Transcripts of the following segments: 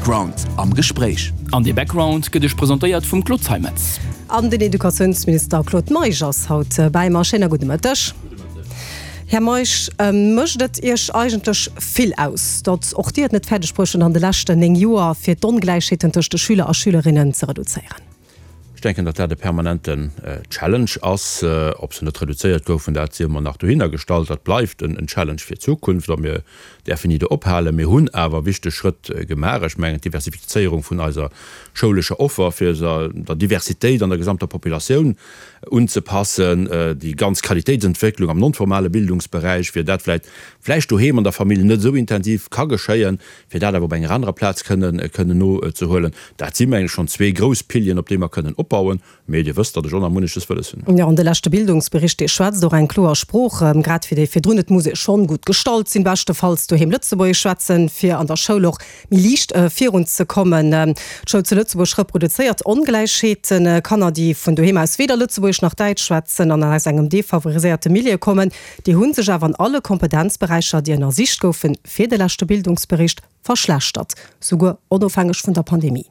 Background am Gespréich. An dee Background gëtt Iech presentéiert vum Claude Zeimetz. An den Educatiounsminister Claude Meisch ass haut bäi mer. Schéiner gudde Mëtteg. Här Meisch, mécht et Iech eigentlech vill aus, datt och Dir et net fäerdeg bruecht hutt an de leschten 9 Joer, fir d'Ongläichheeten tëscht de Schüler a Schülerinnen ze reduzéieren? Ech denken, datt dat e permanenten Challenge ass. Ob se net reduzéiert goufen, dat sief emol nach dohinner gestallt. Dat bleift en Challenge fir d'Zukunft a mir däerfen ni do ophalen. Mir hunn awer wichteg Schrëtt gemaach. Ech mengen, d'Diversifizéierung vun eiser schoulescher Offer, fir se der Diversitéit an der gesamter Populatioun unzepassen, déi ganz Qualitéitsentwécklung am non-formale Bildungsberäich, fir dat vläicht vläicht doheem an der Famill net esou intensiv ka geschéien, fir dat awer op enger anerer Plaz kënnen kënnen nozehuelen. Dat si mengen ech schonn zwee grouss Pilieren, op déi mer kënnen opbauen. Mee Dir wësst, datt ech och nach munneches wëlles hunn. Jo, an de leschte Bildungsbericht, dee schwätzt och eng kloer Sprooch, grad wéi dee virdrun. Et muss ee schonn gutt gestallt sinn, beschtefalls doheem Lëtzebuergesch schwätzen, fir an der Schoul och méi liicht virunzekommen. D'Schoul zu Lëtzebuerg reproduzéiert Ongläichheeten. Kanner, déi vun doheem aus weder Lëtzebuergesch nach Däitsch schwätzen an aus engem defavoriséierte Milieu kommen, déi hu sech awer an alle Kompetenzberäicher, déi ënnersicht goufen, fir de leschte Bildungsbericht verschlechtert, souguer onofhängeg vun der Pandemie.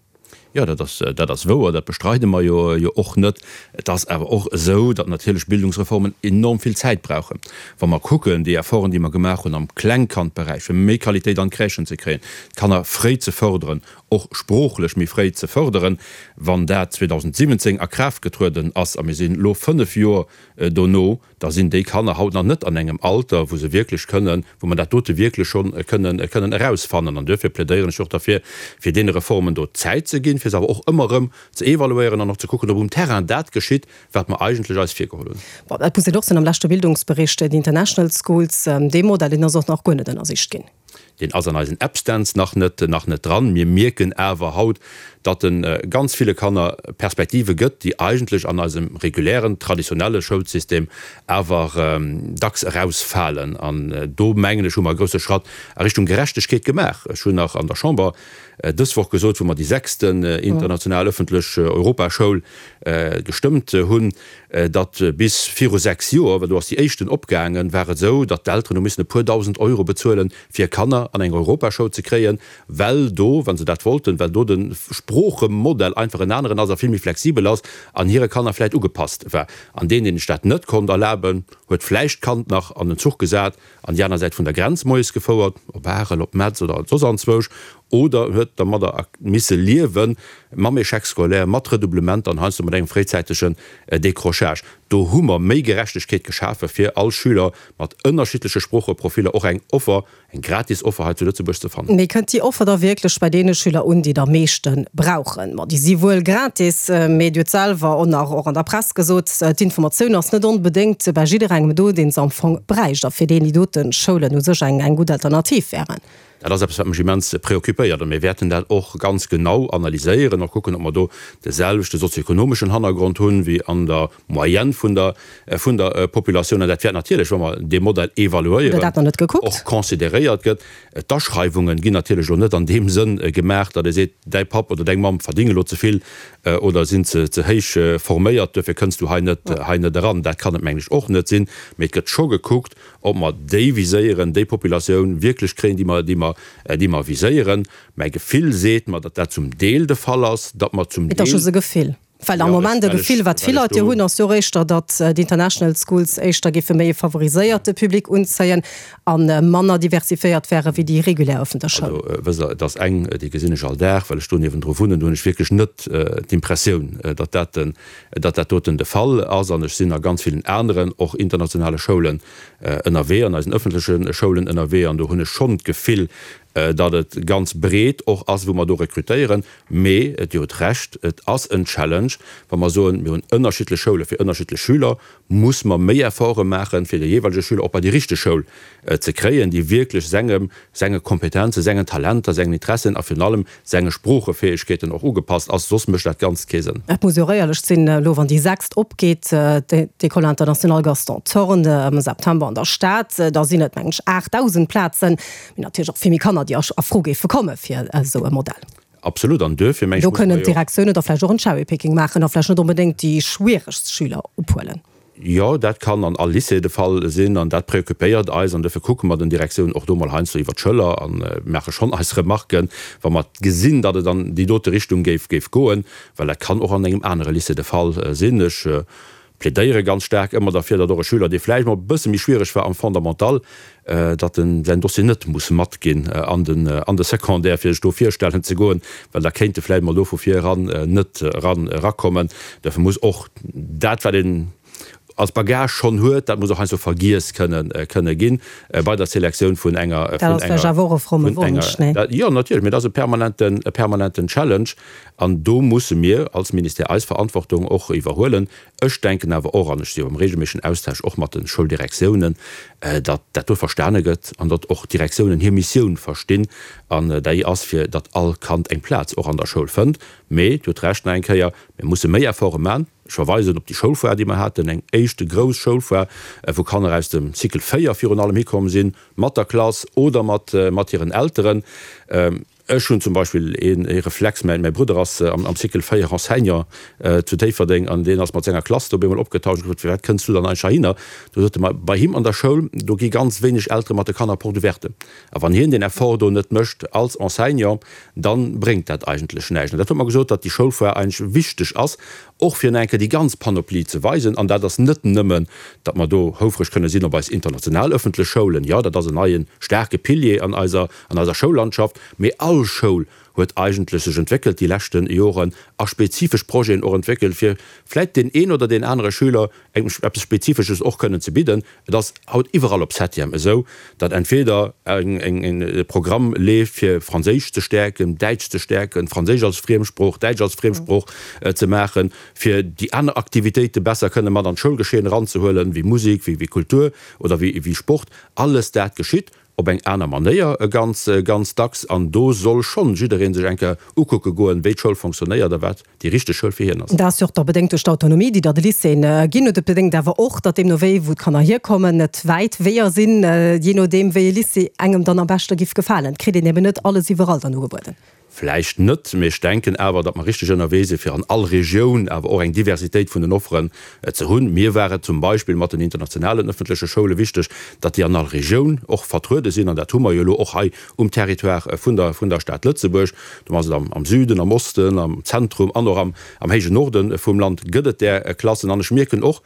Jo, dat ass, dat ass wouer, dat bestreide mer jo, jo och net. Et ass awer och esou, datt natierlech Bildungsreformen enorm vill Zäit brauchen. Wa mer kucken, déi Efforten, déi mer gemaach hunn am Klengkandberäich, fir méi Qualitéit an d'Crèchen ze kréien, d'Kanner fréi ze fërderen, och sproochlech méi fréi ze fërderen, wann dat 2017 a Kraaft getrueden ass, a mir sinn elo fënnf Joer dono, da sinn déi Kanner haut nach net an engem Alter, wou se wierklech kënnen, wou mer dat dote wierklech scho kënnen, kënnen erausfannen. An duerfir plädéieren ech och derfir, fir deene Reformen do Zäit ze ginn, fir se awer och ëmmer erëm ze evaluéieren an och ze kucken, ob um Terrain dat geschitt, wat mer eigentlech eis virgeholl hunn. Bon, dat muss een och soen, am leschte Bildungsbericht, déi International Schools, dee Modell, deen ass och nach guer net ënnersicht ginn. Deen ass an eisen Abständs nach net, nach net dran. Mir mierken awer haut, datt e ganz ville Kanner Perspektive gëtt, déi eigentlech an eisem regulären, traditionelle Schoulsystem awer dacks erausfalen. An do, mengen ech, hu mer e grousse Schratt a Richtung Gerechtegkeet gemaach. Ech hunn nach an der Chamber dës Woch gesot, wou mer déi sechsten international öffentlech Europaschoul gestëmmt hunn, datt bis viru 6 Joer, well do ass déi éischten opgaangen, war et esou, datt d'Elteren hu missen e puer dausend Euro bezuelen, fir Kanner an eng Europaschoul ze kréien, well do, wa se dat wollten, well do de Sproochemodell einfach en aneren ass a vill méi flexibel ass an hire Kanner vläicht ugepasst war. An deen, deen sech dat net konnt erlaben, huet vläicht d'Kand nach an den Zuch gesat an déi aner Säit vun der Grenz moies gefouert, op Arel, op Metz oder soss anzwousch, oder huet dermadder misse liewen, mam Échec scolaire, mat Redoublementer an heiansdo mat engem fréizäitegen Décrochage. Do hu mer méi Gerechtegkeet geschafe fir all Schüler mat ënnerschiddleche Sproocheprofiller och eng Offer, eng gratis Offer hei zu Lëtzebuerg ze fannen. Mee kënnt déi Offer da wierklech bei deene Schüler un, déi et am meeschte brauchen? Ma déi si wuel gratis, mee Dir hutt selwer och nach och an der Press gesot, d'Informatioun ass net onbedéngt bei jidderengem do, deen se am Fong bräicht a fir deen déi dote Schoulen u sech eng gutt Alternativ wären. Dat ass eppes, wat mech immens preoccupéiert. A mir wäerten dat och ganz genau analyséieren, och kucken, ob mer do de selwechte sozioekonomeschen Hannergrond hunn, wéi an der Moyenne vun der, vun der Populatioun. An dat wäert natierlech, wa mer dee Modell evaluéieren, och consideréiert gëtt. D'Aschreiwunge ginn natierlech elo net an deem Sënn gemaach, datt ee seet, däi Papp oder deng Mamm verdénge elo ze vill oder sinn ze, ze héich forméiert, duerfir kënns du hei net, hei net eran. Dat kann et, mengen ech, och net sinn. Mee et gëtt scho gekuckt, ob mer déi viséieren, déi Populatioun wierklech kréien, déi mer, déi mer, déi mer viséieren. Mäi Gefill seet mer, datt dat zum Deel de Fall ass, datt mer zum Et ass Deel. just e Gefill. Well am Jo, ech, Moment e well ech, Gefill, wat vill well ech Leit jo do. hunn, ass jo och éischter, datt d'International Schools éischter géife méi e favoriséierte Public unzéien a manner diversifiéiert wäre wéi déi regulär ëffentlech Schoul. Also, wësst Der, et ass eng, déi gesinn ech all Dag, well ech do niewendru wunnen, do hunn ech wierklech net d'Impressioun, datt dat den, datt dat doten de Fall ass. An ech sinn a ganz villen aneren, och internationale Schoulen ënnerwee, an eisen ëffentleche Schoulen ënnerwee, an do hunn ech schonn d'Gefill, datt et ganz breet och ass, wou mer do rekrutéieren. Mee Dir hutt Recht, et ass en Challenge, wa mer soen, mir hunn ënnerschiddlech Schoule fir ënnerschiddlech Schüler, muss mer méi Efforte maachen, fir de jeeweilege Schüler och bei déi richteg Schoul ze kréien, déi wierklech sengem, senge Kompetenzen, sengen Talenter, sengen Interessen a virun allem senge Sproochefäegkeeten och ugepasst ass, soss mécht dat Ganzt kee Sënn. Et muss jo och éierlech sinn, elo wann déi sechst opgeet, d'École internationale Gaston Thorn am September an der Stad, da sinn et mengen ech 8.000 Plazen, mee natierlech och vill méi Kanner, déi a Fro géife komme fir esou e Modell. Absolut, an duerfir mengen Do ech, muss kënnen mer jo. d'Direktiounen da vläicht och en Cherry-Picking maachen a vläicht net onbedéngt déi schwieregst Schüler ophuelen. Jo, dat kann an all Lycée de Fall sinn an dat préoccupéiert eis an dofir kucke mer den Direktiounen och do mol heiansdo iwwer d'Schëller a maache schonn eis Remarken, wa mer gesinn, datt et an déi dote Richtung géif géif goen, well dat kann och an engem anere Lycée de Fall sinn. Ech plädéiere ganz staark ëmmer derfir, datt och e Schüler, dee vläicht mol e bësse méi schwiereg war am Fondamental, datt en säin Dossier net muss matginn an den an de Secondaire, fir sech do virstellen ze goen, well da kéint e vläicht mol do vu vir eran net eran erakommen. Dofir muss och dat, wat een als Bagage schonn huet, dat muss och heiansdo vergiess kënnen kënne ginn bei der Selektioun vun enger Dat ass vläicht awer och e fromme Wonsch, nee? Jo, natierlech, mee dat ass e permanenten e permanenten Challenge an do musse mir als Ministère eis Verantwortung och iwwerhuelen. Ech denken awer och, an ech si jo am regelméissegen Austausch och mat de Schouldirektiounen, datt dat do verstane gëtt an datt och d'Direktiounen hir Missioun verstinn, an déi ass, fir datt all Kand eng Plaz och an der Schoul fënnt. Mee Dir hutt Recht nach eng Kéier, mir musse méi Efforte man. Ech verweisen op déi Schoulfoire, déi mer haten, eng éischte grouss Schoulfoire, wou Kanner aus dem Cycle 4 virun allem hikomm sinn, mat der Klass oder mat hiren Elteren. Ech hunn zum Beispill ee Reflex, mäi Brudder ass am Cycle 4 Enseignant zu Déifferdeng an deen ass mat senger Klass do op eemol opgetaucht. Ech hu gefrot, Firwat kënns du dann eigentlech heihinner? Du sot e mer, bei him an der Schoul, do gi ganz wéineg Eltere mat de Kanner Porte ouverte. A wann hien deen Effort do net mécht als Enseignant, da bréngt dat eigentlech näischt. An dat huet mer gesot, datt déi Schoulfoire eigentlech wichteg ass, och fir nach eng Kéier déi ganz Panoplie ze weisen. An dat ass net nëmmen, datt mer do houfreg kënne sinn op eis international ëffentlech Schoulen, jo, dat ass en neie staarke Pilier an eiser, an eiser Schoullandschaft, mee all Schoul huet eigentlech sech entwéckelt déi leschte Joren a spezifesch Projeten och entwéckelt, fir vläit deen een oder deen anere Schüler eng, eppes Spezifesches och kënnen ze bidden. Et ass haut iwwerall op Septième esou, datt entweder eng e Programm leeft, fir Franséisch ze stäerken, Däitsch ze stäerken, Franséisch als Friemsprooch, Däitsch als Friemsprooch ze maachen, fir déi aner Aktivitéite besser kënne mat an d'Schoulgeschehen eranzehuelen, wéi Musek, wéi Kultur oder wéi Sport. Alles dat geschitt op eng aner Manéier ganz, ganz dacks. An do soll schonn jidderee sech eng Kéier ukucke goen, wéi d'Schoul fonctionnéiert a wat déi richteg Schoul fir hien ass. Dat ass jo och da bedéngt duerch d'Autonomie, déi der de Lycéeën ginn huet. Et bedéngt awer och, datt deemno wéi, wou d'Kanner hierkommen, et wäit Weeër sinn, jee nodeem wéi e Lycée engem dann am beschte giff gefalen. Et kritt een eben net alles iwwerall dann ugebueden. Vläicht net, mee ech denken awer, datt mer richteg ënnerwee sinn, fir an all Regioun awer och eng Diversitéit vun den Offeren ze hunn. Mir war et zum Beispill mat den internationalen ëffentleche Schoule wichteg, datt déi an all Regioun och vertruede sinn, an dat hu mer jo elo och hei um Territoire vun der vun der Stad Lëtzebuerg. Do ass et am Süden, am Osten, am Zentrum an och am am héijen Norde vum Land gëtt et där Klassen. An ech mierken och,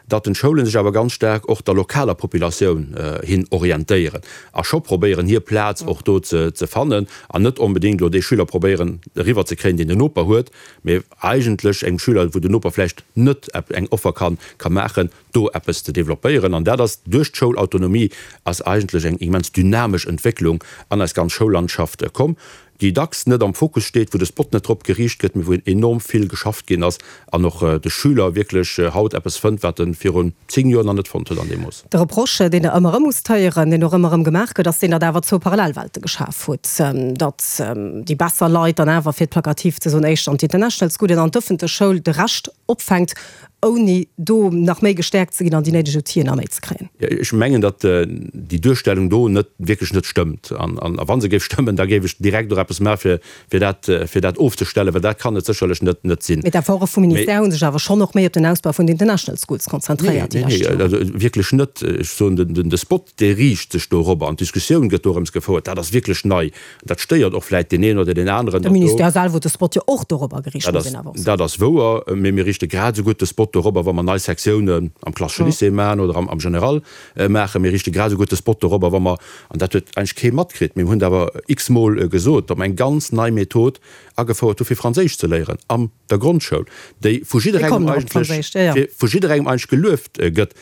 datt den d'Schoulen sech awer ganz staark och der lokaler Populatioun hin orientéieren a scho probéieren hir Plaz och do ze fannen an net onbedéngt elo dee Schüler probéieren eriwwer ze kréien, deen den Noper huet, mee eigentlech engem Schüler, wou den Noper vläicht net eng Offer ka ka maachen, do eppes ze développéieren. An dat ass duerch d'Schoulautonomie ass eigentlech eng immens dynamesch Entwécklung an eis ganz Schoullandschaft komm. déi dacks net am Fokus steet, wou de Spot net drop geriicht gëtt, mee wou enorm vill geschafft ginn ass an och de Schüler wierklech haut eppes fënnt, wat e virun 10 Joer nach net fonnt huet an deem Mooss. De Reproche, deen Der ëmmer erëm musst héieren, deen och ëmmer erëm gemaach gëtt, ass deen, datt awer zwou Parallelwelte geschaf hutt, datt déi besser Leit dann awer, fir et plakativ ze soen, éischter an d'International Schoolen an d'ëffentlech Schoul de Rescht opfänkt, ouni do nach méi gestäerkt ze ginn an déi néideg Outiller nach méi ze kréien. Ech mengen, datt déi Duerstellung do net, wierklech net stëmmt. An wa se géif stëmmen, da géif ech direkt och eppes maache fir dat, fir dat ofzestellen, well dat kann et sécherlech net, net sinn. Mee d'Efforte vum Ministère hu sech awer schonn och méi op den Ausbau vun den International Schools konzentréiert déi lescht Joren. Nee, nee, wierklech net. Ech soen, de Spot, dee riicht sech dorobber an d'Diskussioun gëtt dorëms gefouert. Dat ass wierklech nei. Dat stéiert och vläit deen een oder deen aneren. De Ministère selwer huet de Spot jo och dorobber geriicht, muss een awer och soen. Dat ass wouer, mee mir riichte grad esou gutt de Spot dorobber, wa mer nei Sektiounen am klassesche Lycée maachen oder am General maachen. Mir riichte grad esou gutt de Spot dorobber, wa mer, an dat huet eigentlech kee matkritt, mee mir hunn et awer x-mol gesot, datt mer eng ganz nei Method agefouert hu fir Franséisch ze léieren am der Grondschoul, déi vu jidderengem eigentlech, vu jidderengem eigentlech gelueft gëtt.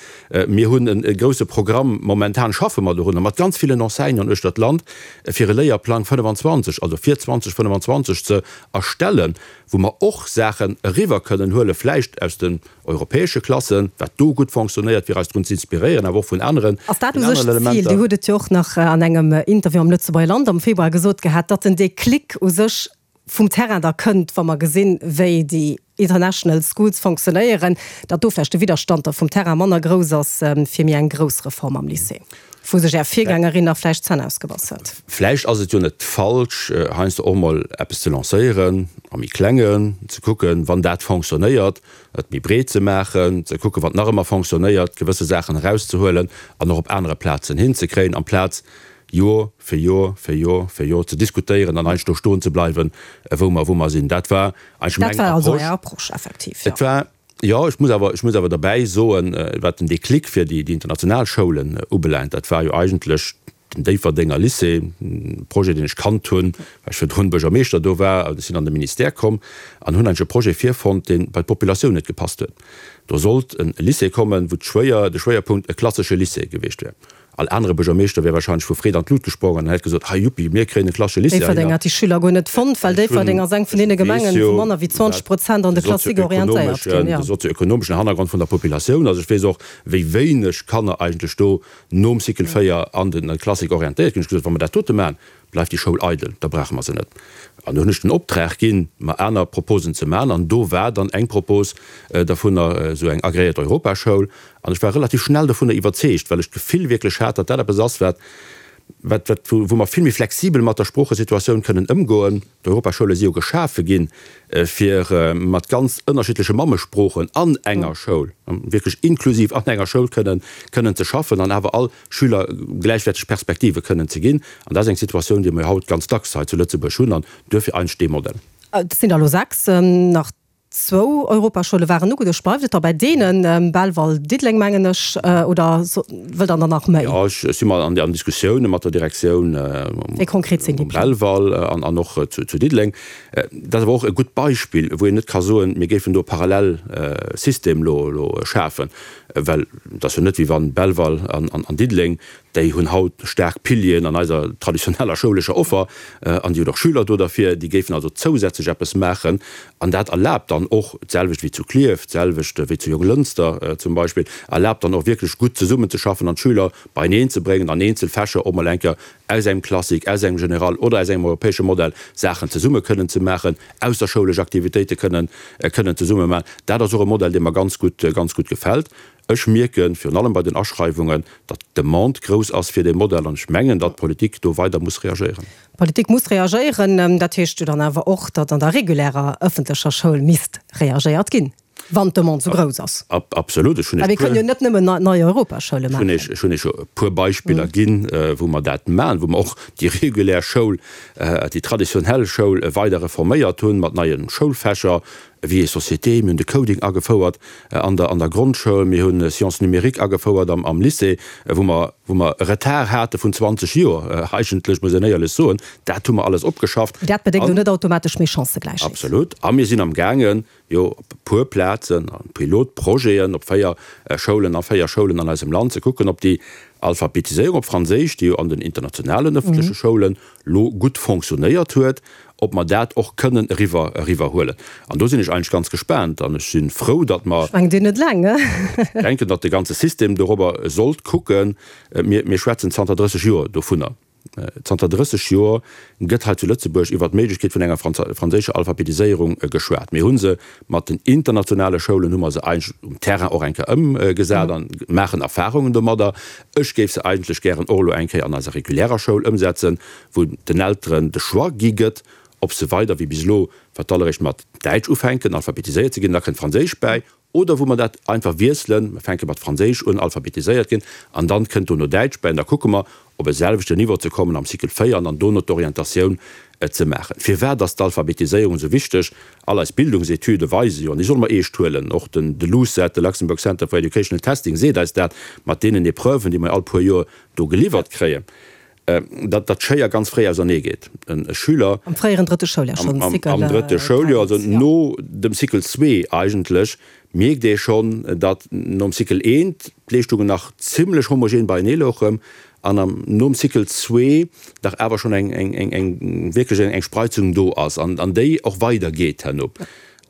Mir hunn e grouse Programm, momentan schaffe mer dorunner mat ganz villen Enseignanten uechter d'Land, fir e Léierplang 25, also fir 2025 ze erstellen, wou mer och Saachen eriwwer kënnen huelen, vläicht aus den europäesche Klassen, wat do gutt fonctionnéiert, fir eis drun ze inspiréieren, awer och vun aneren Ass dat u sech d'Zil? Dir hutt et jo och nach an engem Interview am Lëtzebuerger Land am Februar gesot gehat, datt den Déclic u sech vum Terrain da kënnt, wa mer gesinn, wéi déi International Schools fonctionnéieren, datt do vläicht de Widderstand da vum Terrain manner grouss ass fir méi eng grouss Reform am Lycée. Wou sech Är Virgängerin nach vläicht d'Zänn ausgebass huet. Vläicht ass et jo net falsch, heiansdo och mol eppes ze lancéieren, am méi Klengen, ze kucken, wann dat fonctionnéiert, et méi breet ze maachen, ze kucken, wat nach ëmmer fonctionnéiert, gewësse Saachen erauszehuelen an och op anere Plazen hinzekréien, amplaz Jor fir Jor fir Jor fir Jor ze diskutéieren an eigentlech do stoen ze bleiwen, wou mer, wou mer sinn. Dat war eigentlech meng Approche. Dat war also Är Approche, effektiv, jo. Et war, jo, ech muss awer, ech muss awer derbäi soen, wat den Déclic fir déi, déi international Schoulen ubelaangt, dat war jo eigentlech den Déifferdenger Lycée, e Projet, deen ech kannt hunn, well ech virdrun Buergermeeschter do war. Ech sinn an de Ministère komm an hunn eigentlech e Projet virfonnt, dee bei d'Populatioun net gepasst huet. Do sollt e Lycée kommen, wou d'Schwéier, de Schwéierpunkt e klassesche Lycée gewiescht wär. All anere Buergermeeschter wär wahrscheinlech vu Freed an d'Lut gesprongen an hätt gesot, Hei, juppi, mir kréien e klassesche Lycée Déifferdeng heihinner. hat déi Schüler guer net fonnt, well Déifferdeng ass eng vun deene Gemengen, wou manner wéi 20 Prozent an de Classique orientéiert ginn. De sozioökonomeschen Hannergrond vun der Populatioun. Also ech weess och, wéi wéineg Kanner eigentlech do nom Cycle 4 an de Classique orientéiert ginn. Ech hu gesot, wa mer dat dote maachen, bleift déi Schoul eidel, da brauche mer se net. An do hunn ech den Optrag ginn, mer aner Proposen ze maachen. An do war dann eng Propos dervunner esou eng agréiert Europaschoul. An ech war relativ schnell dovunner iwwerzeegt, well ech d'Gefill wierklech hat, datt dat eppes ass, wat, wat, wat, wou mer vill méi flexibel mat der Sproochesituatioun kënnen ëmgoen. D'Europaschoule si jo geschafe ginn, fir mat ganz ënnerschiddleche Mammesproochen an enger Schoul, wierklech inklusiv an enger Schoul kënnen, kënnen ze schaffen an awer all Schüler gläichwäerteg Perspektive kënnen ze ginn. An dat ass eng Situatioun, déi mer jo haut ganz dacks hei zu Lëtzebuerg hunn an duerfir eigentlech dee Modell. Et sinn der elo 6, nach zwou Europaschoule waren ugeduecht. Bleift et da bei deenen, Belval, Diddeleng mengen ech, oder wëllt Der der nach méi? Jo, ech si mer an Diskussioune mat der Direktioun Wéi konkret sinn déi um Pläng? Belval an och zu Diddeleng. Dat ass awer och e gutt Beispill, wou een net ka soen, mir géifen do e Parallelsystem elo schafen. Well et ass jo net, wéi wann Belval an Diddeleng, déi hunn haut staark Pilieren an eiser traditioneller schoulescher Offer an déi hunn och Schüler do derfir, déi géifen also zousätzlech eppes maachen. An dat erlaabt dann och, d'selwecht wéi zu Klierf, d'selwecht wéi zu Jonglënster zum Beispill, erlaabt dann och wierklech gutt zesummenzeschaffen an d'Schüler beieneen ze bréngen an eenzel Fächer och mol eng Kéier aus engem Classique, aus engem General oder aus engem europäesche Modell Saachen zesumme kënnen ze maachen, ausserschoulesch Aktivitéite kënnen kënnen zesumme maachen. Dat ass och e Modell, dee mer ganz gutt, ganz gutt gefält. Ech mierken, virun allem bei den Aschreiwungen, datt d'Demande grouss ass fir dee Modell an ech mengen, datt d'Politik do weider muss reagéieren. D'Politik muss reagéieren. Dat heescht jo dann awer och, datt an der regulärer ëffentlecher Schoul misst reagéiert ginn. Wann d'Demande esou grouss ass. Absolut. Ech hunn Well mir kënnen jo net nëmmen nei Europaschoule maachen. Ech hunn Iech jo e puer Beispiller ginn, wou mer dat maachen, wou mer och déi regulär Schoul, déi traditionell Schoul weider reforméiert hunn mat neie Schoulfächer, Vie et société, mir hunn de Coding agefouert an der an der Grondschoul, mir hu Sciences numériques agefouert am am Lycée, wou mer wou mer e Retard hate vun 20 Joer eigentlech, muss een éierlech soen. Dat hu mer alles opgeschafft. Dat bedéngt elo net automatesch méi Chancëgläichheet. Absolut. A mir sinn amgaangen, jo op e puer Plazen, a Pilotprojeten op 4 Schoulen, a 4 Schoulen an eisem Land, ze kucken, ob déi Alphabetiséierung op Franséisch, déi jo an den internationalen ëffentleche Schoulen lo gutt fonctionnéiert huet, ob mer dat och kënnen eriwwer eriwwerhuelen. An do sinn ech eigentlech ganz gespaant an ech si frou, datt mer. Ech mengen, Dir net eleng. Denken, datt de ganze System dorobber sollt kucken. Mir, mir schwätzen zanter 30 Joer dovunner. Zanter 30 Joer gëtt hei zu Lëtzebuerg iwwer d'Méiglechkeet vun enger franséischer Alphabetiséierung geschwat. Mir hu se mat den internationale Schoulen hu mer se eigentlech um Terrain och eng Kéier ëmgesat a maachen Erfahrungen domadder. Ech géif se eigentlech gären och elo eng Kéier an eiser regulärer Schoul ëmsetzen, wou den Elteren de Choix gi gëtt, ob se weider wéi bis elo fir d'alleréischt mat Däitsch ufänken alphabetiséiert ze ginn, da kënnt Franséisch bäi, Oder wou mer dat einfach wiesselen, mer fänke mat Franséisch un, alphabetiséiert ginn, an dann kënnt dono Däitsch bäi, an da kucke mer, op e selwechten Niveau ze kommen am Cycle 4 an dann dono d'Orientatioun ze maachen. Firwat ass d'Alphabetiséierung esou wichteg? All eis Bildungsetüde weise jo, an déi solle mer eescht huelen, och den de LUCET, de Luxembourg Center for Educational Testing seet eis dat, mat deenen Epreuven, déi mer all puer Joer do geliwwert kréien, datt d'Schéier ganz fréi ausernee geet. E Schüler. Am fréieren drëtte Schouljahr schonn, Cycle. Am drëtte Schouljoer, also no dem Cycle zwee eigentlech, mierkt ee schonn, datt nom Cycle eent d'Leeschtungen nach zimlech homogen beienee louchen an am nom Cycle zwee dach awer schonn eng, eng, eng, wierklech eng Spreizung do ass an déi och weidergeet herno.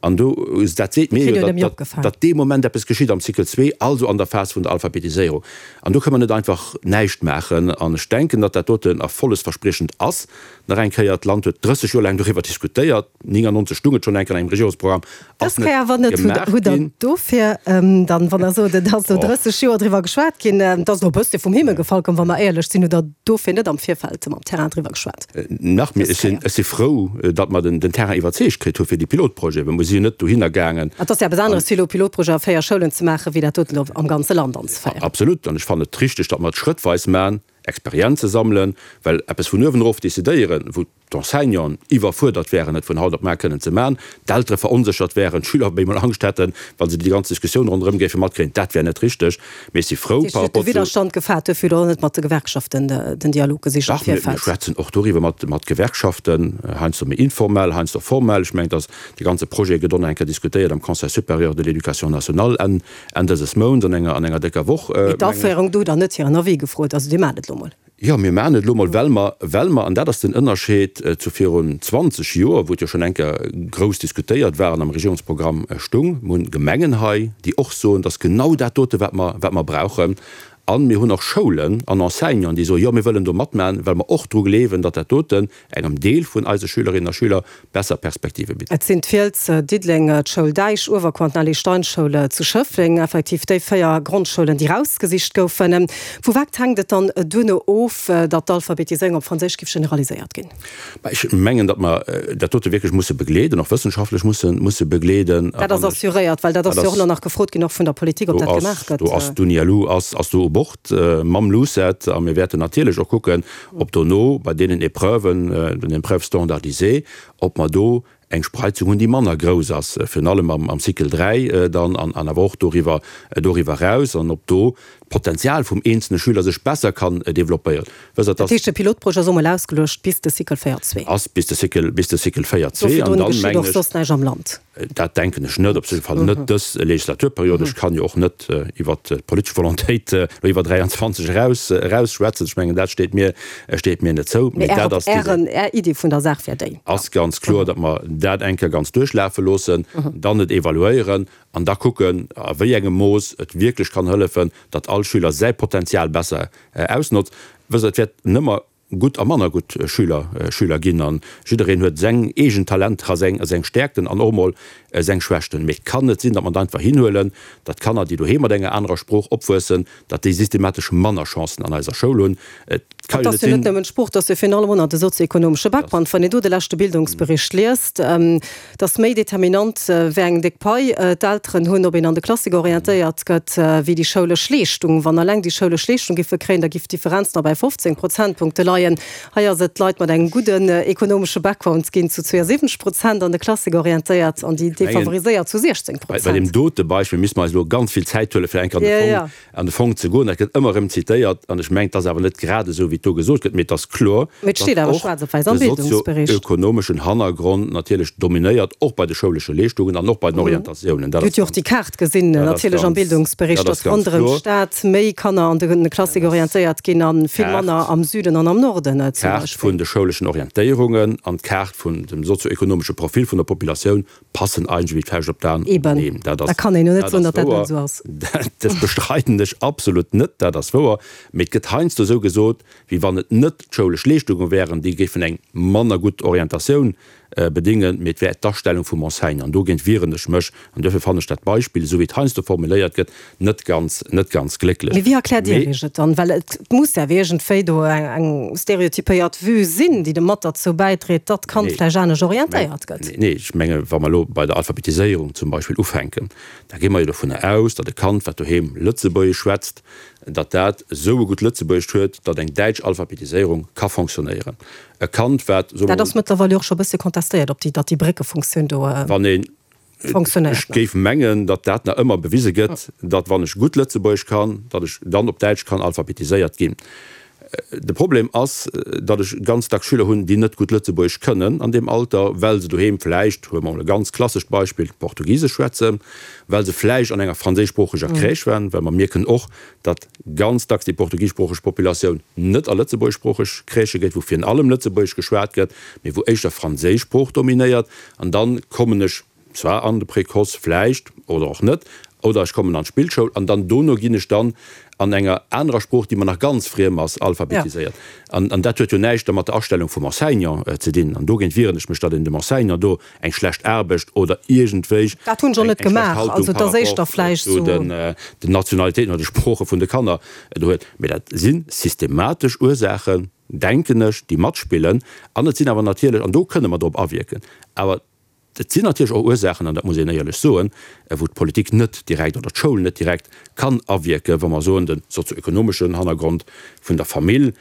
An do, dat seet mir jo, datt dee Moment eppes geschitt am Cycle zwee, also an der Phas vun der Alphabetiséierung. An do kënne mer net einfach näischt maachen. An ech denken, datt dat doten erfollegsverspriechend ass. Nach eng Kéier, d'Land huet 30 Joer laang doriwwer diskutéiert, 99 stung et schonn eng Kéier an engem Regierungsprogramm, ass net gemaach ginn. Hutt Der dofir dann, wann Der sot, et ass elo 30 Joer driwwer geschwat ginn, et ass elo e bëssche vum Himmel gefall komm, wa mer éierlech sinn, hutt Der dofir net am Virfeld mam Terrain driwwer geschwat? Nach méi, ech sinn, ech si frou, datt mer den Terrain iwwerzeegt kritt hu fir déi Pilotprojete, well mer si jo net dohinner gaangen. Et ass jo eppes aneres, fir elo Pilotprojet a 4 Schoulen ze maachen, wéi dat doten elo am ganze Land anzeféieren. Absolut. An ech fannen et richtig, datt mer et schrëttweis maachen, Experienze sammelen, well eppes vun uewen erof decidéieren, wou d'Enseignanten iwwerfuerdert wären, et vun haut op mar kënnen ze maachen, d'Eltere veronséchert wären, d'Schüler op eemol Angscht hätten, wa se déi ganz Diskussioun ronderëm géife matkréien, dat wär net richteg. Mee ech si frou par rapport zu. De Widderstand gefaart, duerfir hutt Der och net mat de Gewerkschaften den Dialog gesicht am Virfeld. Dach, mir schwätzen och doriwwer mat Gewerkschaften, heiansdo méi informell, heiansdo formell. Ech mengen, dass de ganze Projet gëtt och nach eng Kéier diskutéiert am Conseil supérieur de l'éducation nationale Enn dëses Mounts, an enger décker Woch, mengen ech. Mee d'Aféierung, do hutt Der net hiren Avis gefrot. Also Dir maacht et elo mol. Jo, mir maachen et elo mol, well mer, well mer, an dat ass den Ënnerscheed zu virun 20 Joer, wou et jo schonn eng Kéier grouss diskutéiert war an am Regierungsprogramm stung, mir hunn Gemengen hei, déi och soen, dass genau dat dote wat mer, wat mer brauchen. A mir hunn och Schoulen an Enseignanten, déi soen, jo, mir wëllen do matmachen, well mer och dru gleewen, datt dat doten engem Deel vun eise Schülerinnen a Schüler besser Perspektive bitt. Et sinn d'Fiels, Diddeleng, d'Schoul Däich, Uewerkuer an d'Nelly Stein Schoul zu Schëffleng, effektiv déi 4 Grondschoulen, déi rausgesicht goufen. Vu wat hänkt et dann duerno of, datt d'Alphabetiséierung op Franséisch giff generaliséiert ginn? Ech mengen, datt mer dat dote wierklech musse begleeden, och wëssenschaftlech musse musse begleeden. Dat ass assuréiert, well dat ass jo och elo nach gefrot ginn, och vun der Politik, ob dat gemaach gëtt. Do ass d'UNILU ass do u Bord mam LUCET a mir wäerten natierlech och kucken, ob dono bei deenen Épreuven, den Épreuves standardisées, ob mer do eng Spreizung hunn, déi manner grouss ass, virun allem am Cycle 3 dann an awer och doriwwer, doriwwer eraus, an ob do d'Potenzial vum eenzelne Schüler sech besser kann développéieren. Wësst Der, dass. Dat heescht, de Pilotprojet ass emol ausgeluecht bis de Cycle 4 zwee. Ass bis de Cycle, bis de Cycle 4 zwee. An dann, mengen ech. Och soss näischt am Land. Dat denken ech net, op jidde Fall net dës Legislaturperiod. Ech kann jo och net iwwert d'politesch Volontéit elo iwwer 23 eraus eraus schwätzen. Ech mengen, dat steet mir, steet mir net zou. Mee dat ass déi. Är Idee vun der Saach wär déi. Ass ganz kloer, datt mer dat eng Kéier ganz duerchlafe loossen, dann et evaluéieren an da kucken, a wéi engem Mooss et wierklech kann hëllefen, datt all Schüler säi Potenzial besser ausnotzt. Wësst Der, et wäert nëmmer gutt a manner gutt Schüler Schüler ginn an jiddereen huet seng eegen Talenter a seng seng Stäerkten an och emol seng Schwächten. Mee et kann net sinn, datt mer et einfach hinhuelen, datt Kanner, déi doheem mat enger anerer Sprooch opwuessen, datt déi systematesch manner Chancen an eiser Schoul hunn. Et ka jo net sinn. Et ass jo net nëmmen d'Sprooch, et ass jo virun allem och nach de sozioekonomesche Background. Wann een do de leschte Bildungsbericht liest, Et ass méi determinant, wéi eng déck Pai d'Elteren hunn, ob een an de Klassik orientéiert gëtt, wéi déi schoulesch Leeschtung. Wann alleng déi schoulesch Leeschtung giffe kréien, da giff d'Differenz nach bei 15 Prozentpunkte leien. Hei ass et, d'Leit mat engem gudden ekonomesche Background ginn zu 72 Prozent an de Klassik orientéiert an déi defavoriséiert zu 16 Prozent. Bei deem dote Beispill misste mer eis elo ganz vill Zäit huelen, fir eng Kéier an de Fong an de Fong ze goen. Dat gëtt ëmmer erëm zitéiert an ech mengen, et ass awer net grad esou, wéi et do gesot gëtt, mee et ass kloer, datt och de sozio-ökonomeschen Hannergrond natierlech dominéiert, och bei de schoulesche Leeschtungen an och bei den Orientatiounen. Dat ass ganz, déi Kaart gesinn natierlech am Bildungsbericht, datt ronderëm d'Stad méi Kanner an de Klassik orientéiert ginn a vill manner am Süden an am Norden zum Beispill. D'Kaart vun de schouleschen Orientéierungen an d'Kaart vun dem sozio-ökonomesche Profil vun der Populatioun passen eigentlech wéi d'Fauscht op d'An. Eben, Neen, dat ass, da kann een jo net soen, datt dat net esou ass. Dat bestreiden ech absolut net, dat ass wouer. Mee et gëtt heiansdo esou gesot, wéi wann et net d'schoulesch Leeschtunge wären, déi géifen eng manner gutt Orientatioun bedéngen, mee et wär d'Astellung vum Enseignant. An dogéint wieren ech mech. An duerfir fannen ech dat Beispill, esou wéi et heiansdo formuléiert gëtt, net ganz, net ganz glécklech. Mee wéi erkläert Dir Iech et dann? Well et muss ja iergendwéi do eng stereotypéiert Vue sinn, déi de mat derzou bäidréit, datt d'Kand vläicht anescht orientéiert gëtt. Nee, ech menge wa mer elo bei der Alphabetiséierung zum Beispill ufänken, da gi mer jo dovunner aus, datt e Kand, wat doheem Lëtzebuergesch schwätzt, datt dat esou e gutt Lëtzebuergescht huet, datt eng däitsch Alphabetiséierung ka fonctionnéieren. E Kand, wat, soe mer Dat ass mol. mëttlerweil jo och scho e bësse contestéiert, ob déi, datt déi Bréckefunktioun do. Wann een Ech géif mengen, datt dat nach ëmmer bewise gëtt, datt wann ech gutt Lëtzebuergesch kann, datt ech dann op Däitsch kann alphabetiséiert ginn. De Problem ass, datt ech ganz dacks Schüler hunn, déi net gutt Lëtzebuergesch kënnen an deem Alter, well se doheem vläicht, huele mer emol e ganz klassescht Beispill, Portugisesch schwätzen, well se vläicht an enger franséischsproocheger Crèche waren, well mer mierken och, datt ganz dacks déi portugiseschsproocheg Populatioun net a lëtzebuergeschsproocheg Crèchë geet, wou virun allem Lëtzebuergesch geschwat gëtt, mee wou éischter franséisch Sprooch dominéiert. An dann kommen ech. zwar an de Précoce vläicht oder och net, oder ech kommen an d'Spillschoul an dann dono ginn ech dann an enger anerer Sprooch, déi mer nach ganz friem ass, alphabetiséiert. An dat huet jo näischt da mat der Astellung vum Enseignant ze dinn. An dogéint wieren ech mech, datt een dem Enseignant do eng schlecht Aarbecht oder iergendwéi Dat hunn ech och eng net schlecht gemaach. Haltung Also et par ass éischter rapport vläicht zu sou. den Nationalitéiten oder de Sprooche vun de Kanner do huet. Mee dat si systematesch Ursaachen, denken ech, déi matspillen. An et sinn awer natierlech, an do kënne mer drop awierken, awer et sinn natierlech och Ursaachen, an dat muss een éierlech soen, wou d'Politik net direkt oder d'Schoul net direkt kann awierken, wa mer soen, de sozioekonomeschen Hannergrond vun der Famill,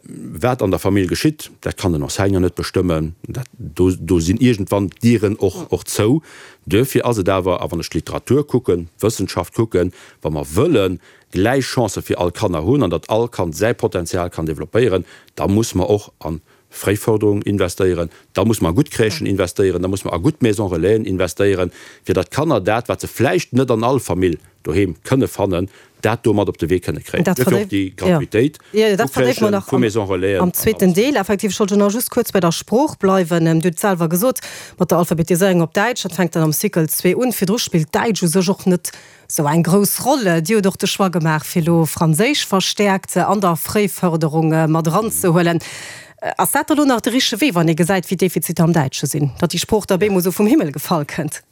wat an der Famill geschitt, dat kann den Enseignant net bestëmmen, dat, do, do sinn iergendwann d'Dieren och, och zou. Duerfir ass et awer, a wann ech d'Literatur kucken, d'Wëssenschaft kucken, wa mer wëllen gläich Chancë fir all Kanner hunn an datt all Kand säi Potenzial kann développéieren, da muss mer och an Fréiförderung investéieren, da muss mer a gutt Crèchen investéieren, da muss mer a gutt Maisons Relaisen investéieren, fir datt d'Kanner dat, wat se vläicht net an all Famill doheem kënne fannen, dat do mat op de Wee kënne kréien. Dat Duerfir och déi Gratuitéit vu vu Crèchen, vu Maisons Relaisen am an zweeten alles. Deel. Effektiv, ech wollt jo nach just kuerz bei der Sprooch bleiwen. Dir hutt et selwer gesot, mat der Alphabetiséierung op Däitsch, dat fänkt dann am Cycle zwee un. Virdru spillt Däitsch u sech och net Sou eng grouss Roll. Dir hutt och de Choix gemaach, fir elo Franséisch verstäerkt an der Fréifërderung mat eranzehuelen. Ass dat da lo nach de richtege Wee, wann ee gesäit, wéi d'Defiziter am Däitsche sinn, datt déi Sprooch da bemol sou vum Himmel gefall kënnt?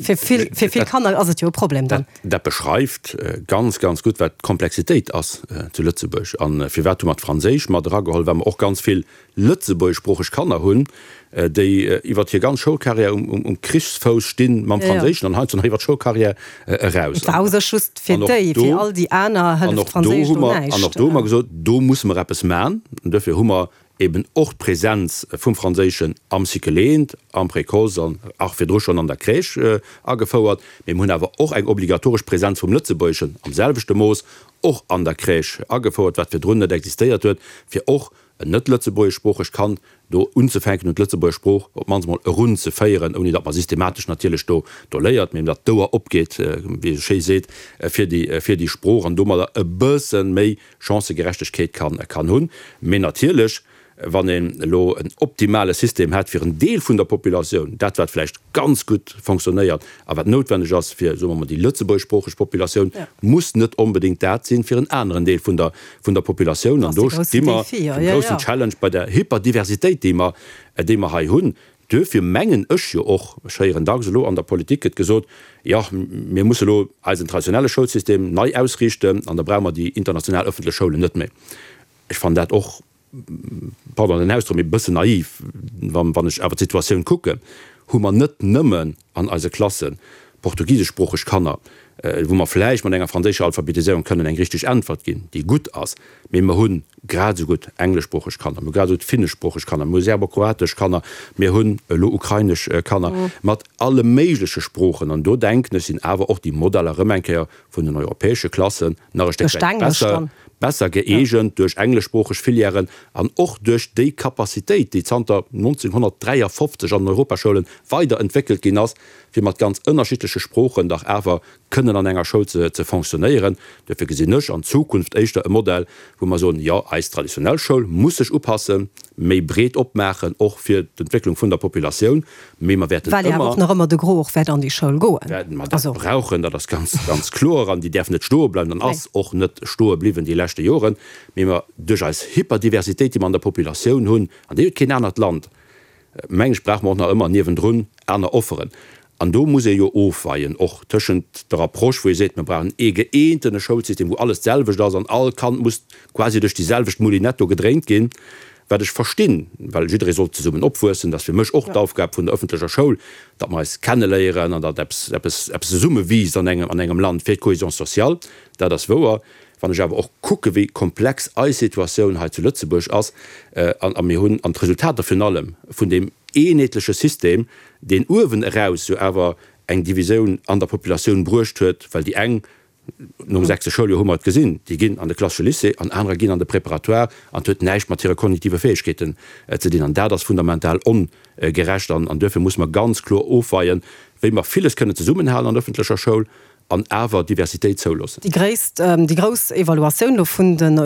Fir vill, fir vill Kanner ass et jo e Problem dann. Dat beschreift ganz, ganz gutt, wat d'Komplexitéit ass zu Lëtzebuerg. A firwat hu mer d'Franséisch mat erageholl? Well mer och ganz vill lëtzebuergeschsproocheg Kanner hunn, déi iwwer hir ganz Schoulcarrière um Krichsfouss stinn mam Franséischen an heiansdo nach iwwer d'Schoulcarrière eraus. Et war u sech just fir déi, fir all déi aner hëlleft d'Franséisch do näischt. An och do hu mer gesot, do musse mer eppes man. An duerfir hu mer eben och d'Präsenz vum Franséischen am Cycle eent, am Précoce an och virdru schonn an der Crèche agefouert. Mee mer hunn awer och eng obligatoresch Präsenz vum Lëtzebuergeschen am selwechte Mooss och an der Crèche agefouert, wat virdrun net existéiert huet, fir och en net-lëtzebuergeschsproochegt Kand do unzefänken un d'lëtzebuergesch Sprooch op d'mannst mol erunzeféieren, ouni datt mer systematesch natierlech do do léiert, mee datt d'Ouer opgeet, wéi ee sou schéi seet, fir déi fir déi Sprooch an domadder e bësse méi Chancëgerechtegkeet kann kann hunn. Mee natierlech, wann een elo en optimale System hätt fir en Deel vun der Populatioun, dat wat vläicht ganz gutt fonctionnéiert a wat noutwenneg ass fir, soe mer mol, déi lëtzebuergeschsproocheg Populatioun, muss net onbedéngt dat sinn fir en aneren Deel vun der vun der Populatioun. An do sti mer vum groussen Challenge bei der Hyperdiversitéit, déi mer, déi mer hei hunn. Duerfir mengen ech jo och, ech héieren dacks elo an der Politik gëtt gesot, jo, mir musse elo eisen traditionelle Schoulsystem nei ausriichten an da brauche mer déi international ëffentlech Schoulen net méi. Ech fannen dat och, pardon den Ausdrock, mee e bëssen naiv. Wann ech awer d'Situatioun kucken, hu mer net nëmmen an eise Klasse portugiseschsproocheg Kanner, wou mer vläicht mat enger franséischer Alphabetiséierung kënnen eng richteg Äntwert ginn, déi gutt ass, mee mer hu grad esou gutt engleschsproocheg Kanner, mer hu grad esou gutt finneschsproocheg Kanner, mer hu serbokroatesch Kanner, mir hunn elo ukrainesch Kanner mat alle méigleche Sproochen. An do denken ech, sinn awer och déi Modeller erëm eng Kéier vun den europäesche Klassen nach e Stéck wäit besser, besser gëeegent duerch engleschsproocheg Filièren an och duerch déi Capacitéit, déi zanter 1953 an den Europaschoulen weider entwéckelt ginn ass, fir mat ganz ënnerschiddleche Sproochen dach awer kënnen an enger Schoul ze ze fonctionnéieren. Duerfir gesinn ech an Zukunft éischter e Modell, wou mer soen, jo, eis traditionell Schoul muss sech upassen, méi breet opmaachen, och fir d'Entwécklung vun der Populatioun, Mee mer wäerten Well jo awer ëmmer. och nach ëmmer de Gros och wäert an déi Schoul goen. Wäerten mer dat Also. brauchen, dat ass ganz, ganz kloer. An déi däerf net stoe bleiwen an ass och net stoe bliwwen déi leschte Joren. Mee mer, duerch eis Hyperdiversitéit, déi mer an der Populatioun hunn, an déi huet keen anert Land, meng ech, brauche mer och nach ëmmer niewendrun aner Offeren. An do muss ee jo ofweien och tëschent der Approche, wou ee seet, mer brauchen ee gëeentene Schoulsystem, wou alles d'selwecht ass an all Kand muss quasi duerch déi selwecht Moulinette do gedréint ginn, Wat ech verstinn, well jidderee soll zesummen opwuessen, dat ass fir mech och d'Aufgab vun der ëffentlecher Schoul, datt mer eis kenneléieren an datt eppes, eppes, eppes zesumme wiisst an engem, an engem Land fir d'Cohésion sociale. Dat ass wouer. Wann ech awer och kucke wéi komplex eis Situatioun hei zu Lëtzebuerg ass, an, a mir hunn, an d'Resultater virun allem vun deem eenheetleche System, deen uewen eraus jo awer eng Divisioun an der Populatioun bruecht huet, well déi eng Nom sechste Schouljoer hu mer et gesinn, déi ginn an de klassesche Lycée an anerer ginn an de Préparatoire an et huet näischt mat hire kognitive Fäegkeeten ze dinn. An dat ass fundamental ongerecht an duerfir musse mer ganz kloer ofweien, wéi mer villes kënnen zesummenhalen an der ëffentlecher Schoul. An awer Diversitéit zouloossen. Déi gréisst, déi grouss Evaluatioun elo vun den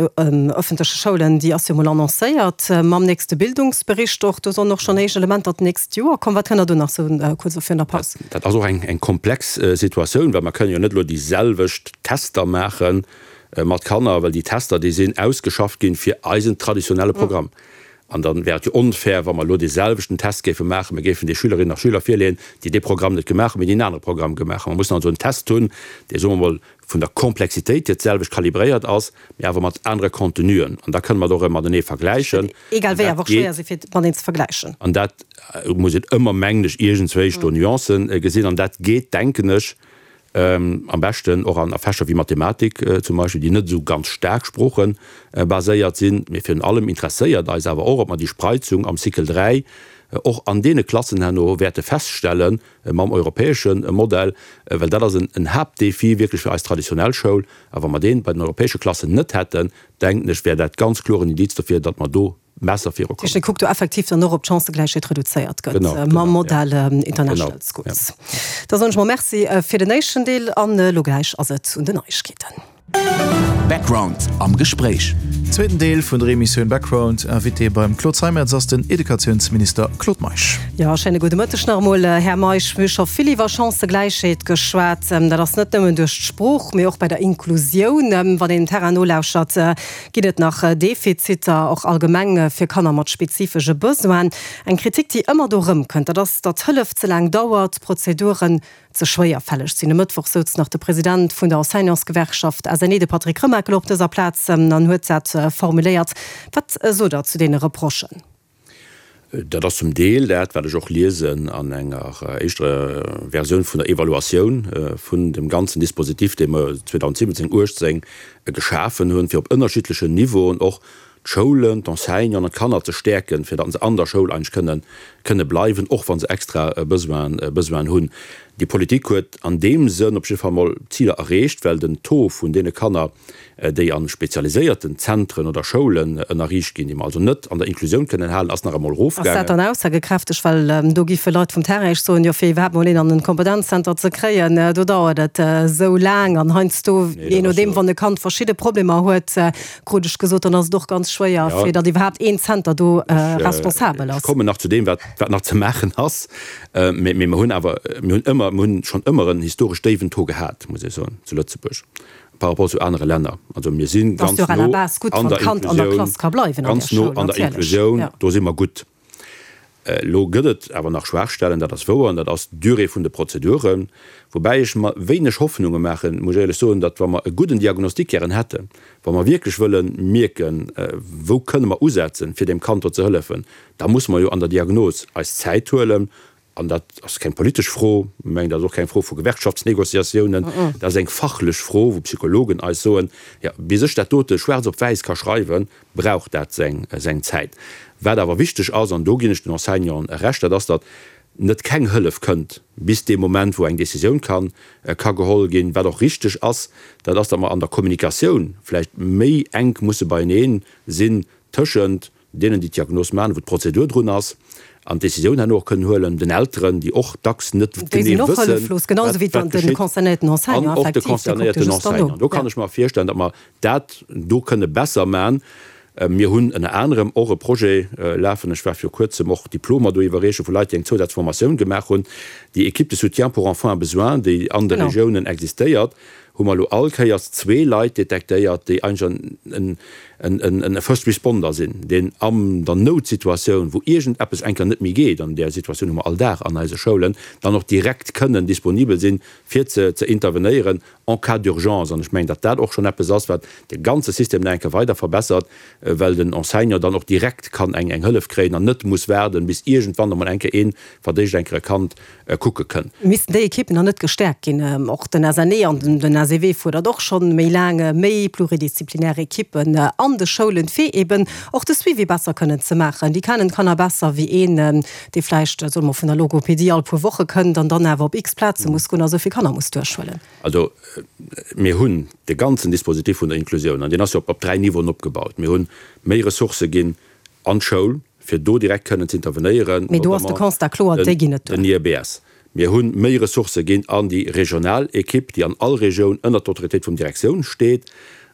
ëffentleche Schoulen, déi ass jo mol annoncéiert mam nächste Bildungsbericht och. Do sollen och schonn éischt Elementer d'nächst Joer kommen. Wat kënnt Der do nach sou kuerz elo virun der Paus? Dat ass och eng komplex Situatioun, well mer kënnen jo net elo déi selwecht Tester maache mat Kanner, well déi Tester, déi sinn ausgeschafft ginn fir eisen traditionelle Programm. An da wär et jo onfair, wa mer elo dee selwechten Test géife maachen, mir géifen de Schülerinnen a Schüler virleeën, déi dee Programm net gemaach hunn, mee déi en anere Programm gemaach hunn. Mer mussen also en Test hunn, dee, soe mer emol, vun der Komplexitéit hier d'selwecht kalibréiert ass, mee awer mat anere Contenuen. An da kënne mer et och erëm matenee vergläichen. Egal wéi awer och schwéier si fir mateneen ze vergläichen. An dat muss een ëmmer, mengen ech, iergendzwéi do Nuancen gesinn. An dat geet, denken ech, Am beschten och an Fächer wéi Mathematik zum Beispill, déi net esou ganz staark sproochebaséiert sinn. Mee virun allem interesséiert eis awer och, ob mer déi Spreizung am Cycle 3 och an deene Klassen herno wäerte feststelle mam europäesche Modell, well dat ass en Haaptdefi wierklech fir eis traditionell Schoul. A wa mer dee bei den europäesche Klassen net hätten, denken ech, wär dat ganz kloer en Indiz dofir, datt mer do besser virukommen. Dir kuckt do effektiv dann och, ob d'Chancëgläichheet reduzéiert gëtt mam Modell International Schools. Da soen ech mol Merci fir den éischten Deel an elo gläich ass et un den Neiegkeeten. Background am Gespréich. Zweeten Deel vun der Emissioun Background. Invité beim Claude Zeimetz ass den Educatiounsminister Claude Meisch. Jo, schéine gudde Mëtteg nach emol, Här Meisch. Mir hu scho vill iwwer Chancëgläichheet geschwat. Dat ass net nëmmen duerch d'Sprooch, mee och bei der Inklusioun. Wann een dem Terrain nolauschert, Ginn et nach Defiziter, och allgemeng fir Kanner mat spezifesche Besoinen? Eng Kritik, déi ëmmer do erëmkënnt, dat ass, datt Hëllef ze laang dauert, d'Prozeduren ze schwéierfälleg sinn. E Mëttwoch souz nach de President vun der Enseignantsgewerkschaft SNE, de Patrick Remakel, op dëser Plaz an huet dat formuléiert. Wat sot Der zu deene Reprochen? Dat ass zum Deel dat, wat ech och liesen an enger éischter Versioun vun der Evaluatioun vun dem ganzen Dispositif, dee mer 2017, 18 geschafen hunn, fir op ënnerschiddlechen Niveauen och d'Schoulen, d'Enseignanten an d'Kanner ze stäerken, fir datt se an der Schoul eigentlech kënnen, kënne bleiwen, och wa se extra Besoinen, Besoinen hunn. Déi Politik huet an deem Sënn op jidde Fall mol Ziler erreecht, well den Taux vun deene Kanner, déi a spezialiséierten Zentren oder Schoulen ënnerriicht ginn, déi mer also net an der Inklusioun kënnen halen, ass nach emol Ass dat erofgaangen. dann aussagekräfteg? Well do giffe Leit vum Terrain Iech soen, jo fir iwwerhaapt mol een an en Kompetenzzenter ze kréien, do dauert et esou laang an heiansdo, Nee, jee dat ass nodeem, jo. wann e Kand verschidde Problemer huet, krut ech gesot, dann ass et och ganz schwéier, Ja. fir datt iwwerhaapt een Zenter do Ech, responsabel ech ass. kommen nach zu deem, wat, wat nach ze maachen ass. Mee, mee mer hunn awer, mir hunn ëmmer, mir hunn schonn ëmmer en historesch déiwen Taux gehat, muss ech soen, zu Lëtzebuerg. Par rapport zu anere Länner. Also mir si ganz no an der Inklusioun, ganz no an der Inklusioun, do si mer gutt. Elo gëtt et awer nach Schwaachstellen, dat ass wouer, an dat ass d'Durée vun de Prozeduren. Woubäi ech mer wéineg Hoffnunge maachen, muss ech éierlech soen, datt wa mer e gudden Diagnostic gären hätten, wa mer wierklech wëlle mierken, wou kënne mer usetzen, fir deem Kand do ze hëllefen, da musse mer jo an der Diagnos eis Zäit huelen An dat ass keng politesch Fro, ech mengen, dat ass och keng Fro vu Gewerkschaftsnégociatiounen, dat ass eng fachlech Fro, wou Psychologen eis soen, jo, bis ech dat dote schwaarz op wäiss ka schreiwen, brauch dat seng Zäit. Wat awer wichteg ass, an do ginn ech den Enseignanten Recht, dat ass, datt net keng Hëllef kënnt bis dee Moment, wou eng Décisioun ka ka geholl ginn. Wat och richteg ass, dat ass, datt mer an der Kommunikatioun vläicht méi enk musse beienee sinn tëschent deenen, déi d'Diagnos maachen, wou d'Prozedur drun ass, an d'Décisioun herno och kënnen huelen, den Elteren, déi och dacks net genee wëssen, wat geschitt, an och de concernéierten Enseignant. Do kann ech mer virstellen, datt mer dat do kënne besser maachen. Mir hunn ënner anerem och e Projet lafen, ech war viru Kuerzem och Diplomer do iwwerreeche vu Leit, déi eng Zousazformatioun gemaach hunn, déi Équipe de soutien pour enfants à besoins, déi an de Regiounen existéiert, hu mer elo all Kéiers zwee Leit detektéiert, déi eigentlech en First Responder sinn, deen an der Noutsituatioun, wou iergendeppes eng Kéier net méi geet, an där Situatioun hu mer all Dag an eise Schoulen, dann och direkt kënnen disponibel sinn, fir ze intervenéieren en cas d'urgence. An ech mengen, datt dat och schonn eppes ass, wat de ganze System nach eng Kéier weider verbessert, well den Enseignant dann och direkt kann eng Hëllef kréien an net muss waarden, bis iergendwann emol eng Kéier ee verdéischt eng Kéier e Kand kucke kënn. Missten déi Ekippen dann net gestäerkt ginn? Och den SNE an den SEW fuerdert och schonn méi laang méi pluridisziplinär Ekippen an de Schoulen, fir eben och de Suivi besser kënnen ze maachen. Déi kennen d'Kanner besser wéi een, dee vläicht, soe mer, vun der Logopedie all puer Woche kënnt an dann awer op x Plaze muss goen a sou vill Kanner muss duerchhuelen. Also mir hunn de ganzen Dispositif vun der Inklusioun, an deen ass jo op dräi Niveauen opgebaut. Mir hunn méi Ressourcë ginn an d'Schoul, fir do direkt kënnen ze intervenéieren, Mee do ass de notamment Constat kloer, déi ginn net duer. den IEBS. Mir hu méi Ressourcë ginn an déi regional Ekipp, déi an all Regioun ënnert d'Autoritéit vum Direktioun steet,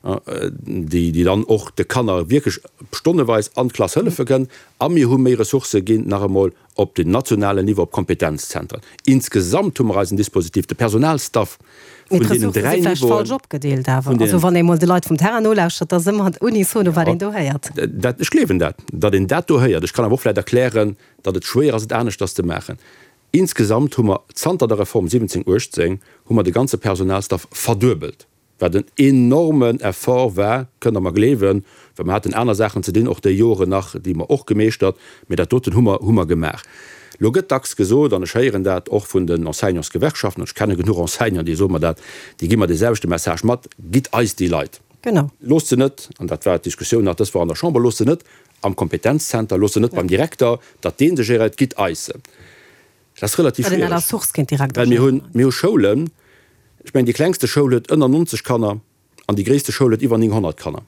déi déi dann och de Kanner wierklech stonneweis an d'Klass hëllefe kënn. A mir hu méi Ressourcë ginn nach emol op den nationalen Niveau, op d'Kompetenzzentren. Insgesamt hu mer eisen Dispositif, de Personalstaff vun deenen dräi Niveauen. Mee d'Ressourcë si vläicht falsch opgedeelt awer. Also wann ee mol de Leit vum Terrain nolauschtert, da ass ëmmer unisono, wat een do héiert. Dat, ech gleewen dat, datt een dat do héiert. Ech kann awer och vläicht erklären, datt et schwéier ass, et aneschters ze maachen. Insgesamt hu mer zanter der Reform 17, 18 hu mer de ganze Personalstaff verduebelt, wat en enormen Effort war, kënnt Der mer gleewen, well mer haten aner Saachen ze dinn, och déi Joren nach, déi mer och gemeeschtert, mä dat doten hu mer, hu mer gemaach. Lo gëtt dacks gesot, an ech héieren dat och vun den Enseignantsgewerkschaften, an ech kenne genuch Enseignanten, déi soe mer dat, déi gi mer dee selwechte Message mat, Gitt eis déi Leit! Genau. Loosst se net, an dat war d'Diskussioun nach dës Woch an der Chamber, loosst se net am Kompetenzzenter, loosst se net beim Direkter, datt dee se géréiert, gitt eis se. Dat ass relativ schwiereg, well mir hunn, mir hu Schoulen, ech mengen déi klengste Schoul huet ënner 90 Kanner an déi gréisste Schoul huet iwwer 900 Kanner.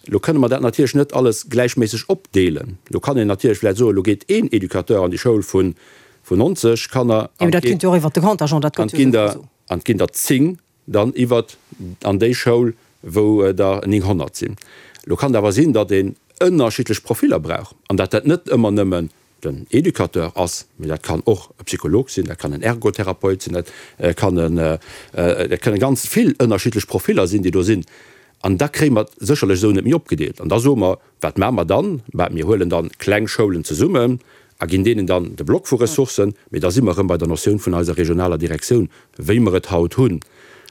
Elo kënne mer dat natierlech net alles gläichméisseg opdeelen. Elo kann een natierlech vläicht soen, elo geet een Educateur an déi Schoul vun 90 Kanner an et ginn der, an et ginn der 10 dann iwwert an déi Schoul, wou der 900 sinn. Elo kann et awer sinn, datt een ënnerschiddlech Profiller brauch an datt dat net ëmmer nëmmen den Educateur ass, mee dat kann och e Psycholog sinn, dat kann en Ergotherapeut sinn, dat kann en, dat kënne ganz vill ënnerschiddlech Profiller sinn, déi do sinn. An da kréie mer et sécherlech esou net méi opgedeelt. An da soe mer, Wat maache mer dann? Bah, mir huelen dann kleng Schoulen zesummen a ginn deenen dann de Block vu Ressourcen. Mee da si mer erëm bei der Notioun vun eiser regionaler Direktioun, wéi mer et haut hunn.